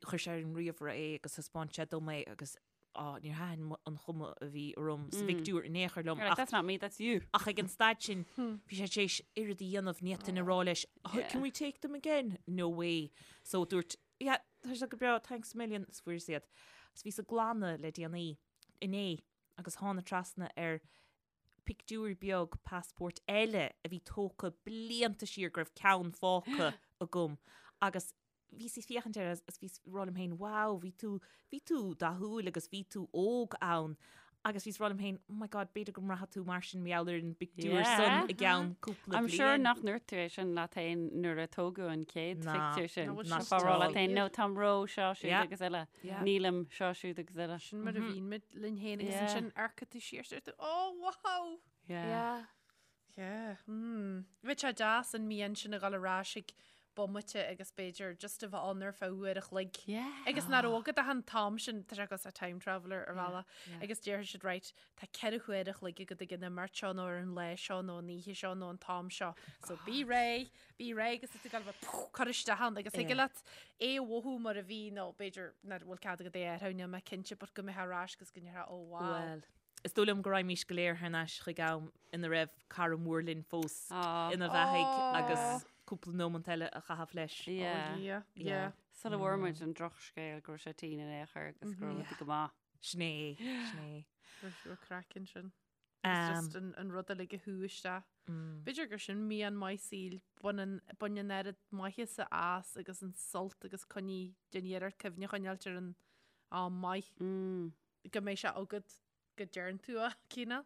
chuir sé ar an ríomhaire é agus thaispeáin sé dom é agus á, níor thaitin an chuma a bhí orm sa phictiúr in aon chor liom. You're like, that's not me, that's you. Ach ag an staid sin, bhí sé tar éis oiread a dhéanamh, ní fhéadfainn a rá leis, "Oh, can we take them again? No way. So dúirt, yeah, tá sé go breá, thanks a million, is fuaireas iad. Agus bhíos ag glanadh le déanaí, inné, agus thána trasna ar pictiúr beag passport eile a bhí tógtha blianta siar go raibh ceann fágtha agam agus bhíos ag féachaint air agus bhíos ag rá liom féin, wow, bhí tú, bhí tú dathúil agus bhí tú óg ann. Agus bhíos ag rá liom féin, oh my god, b'fhéidir go mbraithfidh tú mar sin mar gheall ar an bpictiúr Yeah. san i gceann cúpla I'm bliain. sure nach ndúirt tú é sin leat féin nuair a tógadh an chéad Ná. phictiúr sin. Ná, bhfuil Nach sé rá leat at féin, all. no, táim ró seo siúd Yeah. agus eile. Yeah. Nílim seo siúd agus eile. Sin mar a bhíonn muid linn féin agus Yeah. ansin amharcann tú siar is tú, oh wow! Yeah. Yeah. Mm. Bheadh sé deas an mian sin a dhul ar ais ag bomaite agus b'fhéidir just a bheith ann ar feadh uair a chloig. Yeah. Agus nach raibh agat ach an t-am sin, tá sé cosúil le time traveller ar bhealach, agus déarfaidh siad right, tá 4 huair a chloig agat ag an imeacht seo nó ar an lá seo nó an oíche seo nó an t-am seo. So bí réidh, bí réidh agus tú ag gabháil a bheith cur isteach ann agus thig leat é a mhothú mar a bhí nó b'fhéidir nach bhfuil cead agat é a athrú, níl mé cinnte but go mbeifeá ar ais agus go ndéarfá oh wow. Well, Is dóigh liom go raghaimís go léir thar n-ais chuig am ina raibh cara mór linn fós ina bheathaigh agus cúpla nómant eile a chaitheamh leis. Yeah. Yeah, yeah. Sula bhfuair muid an drochscéal go raibh sé tinn in aon chor agus go raibh rudaí go maith. Sin é, sin é. Raibh craic ansin. Agus just an, an rud uilig a shú isteach. B'fhéidir gur sin mian maith saoil, bain an, bain an oiread maitheasa as agus an sult agus coinnigh, déan iarracht cuimhne a choinneáilt ar an am maith. Go mbeidh sé agat go deireann tú a cineál.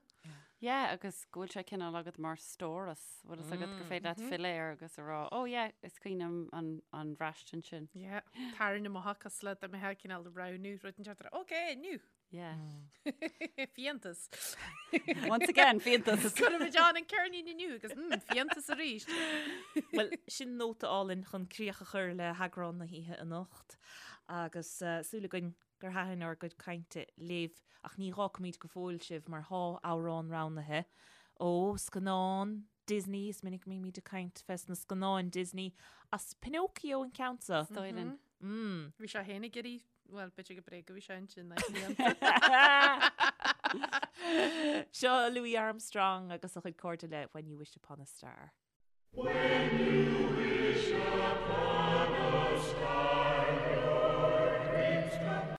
Yeah, agus go bhfuil sé cineál agat mar stóras, bhfuil fhios agat gur féidir leat filleadh air agus a rá, oh yeah, is cuimhin liom an, an bhraistint sin. Yeah, tarraing amach cosúil le dá mbeifeá cineál roghnú rud inteacht, ok, inniu. Yeah. Fiántas. Once again, fiántas. Cuirfimid ann an ceirnín inniu agus mm, fiántas arís. Well, sin nóta álainn chun críoch a chur le heagrán na hoíche anocht agus uh, súil againn gur thaitin ár gcuid cainte libh, ach ní dh'fhágfaimid go fóill sibh mar thá amhrán roghnaithe ó scannán Disney, is minic a mbímid ag caint fes na scannáin Disney, as Pinocchio an ceann seo. Is dóigh linn. Mm. Bhí sé féin ag iarraidh, bhuel, b'fhéidir go bréag a bhí sé ansin, Seo Louis Armstrong agus a chuid cairde le When You Wish Upon a Star. When you wish upon a star.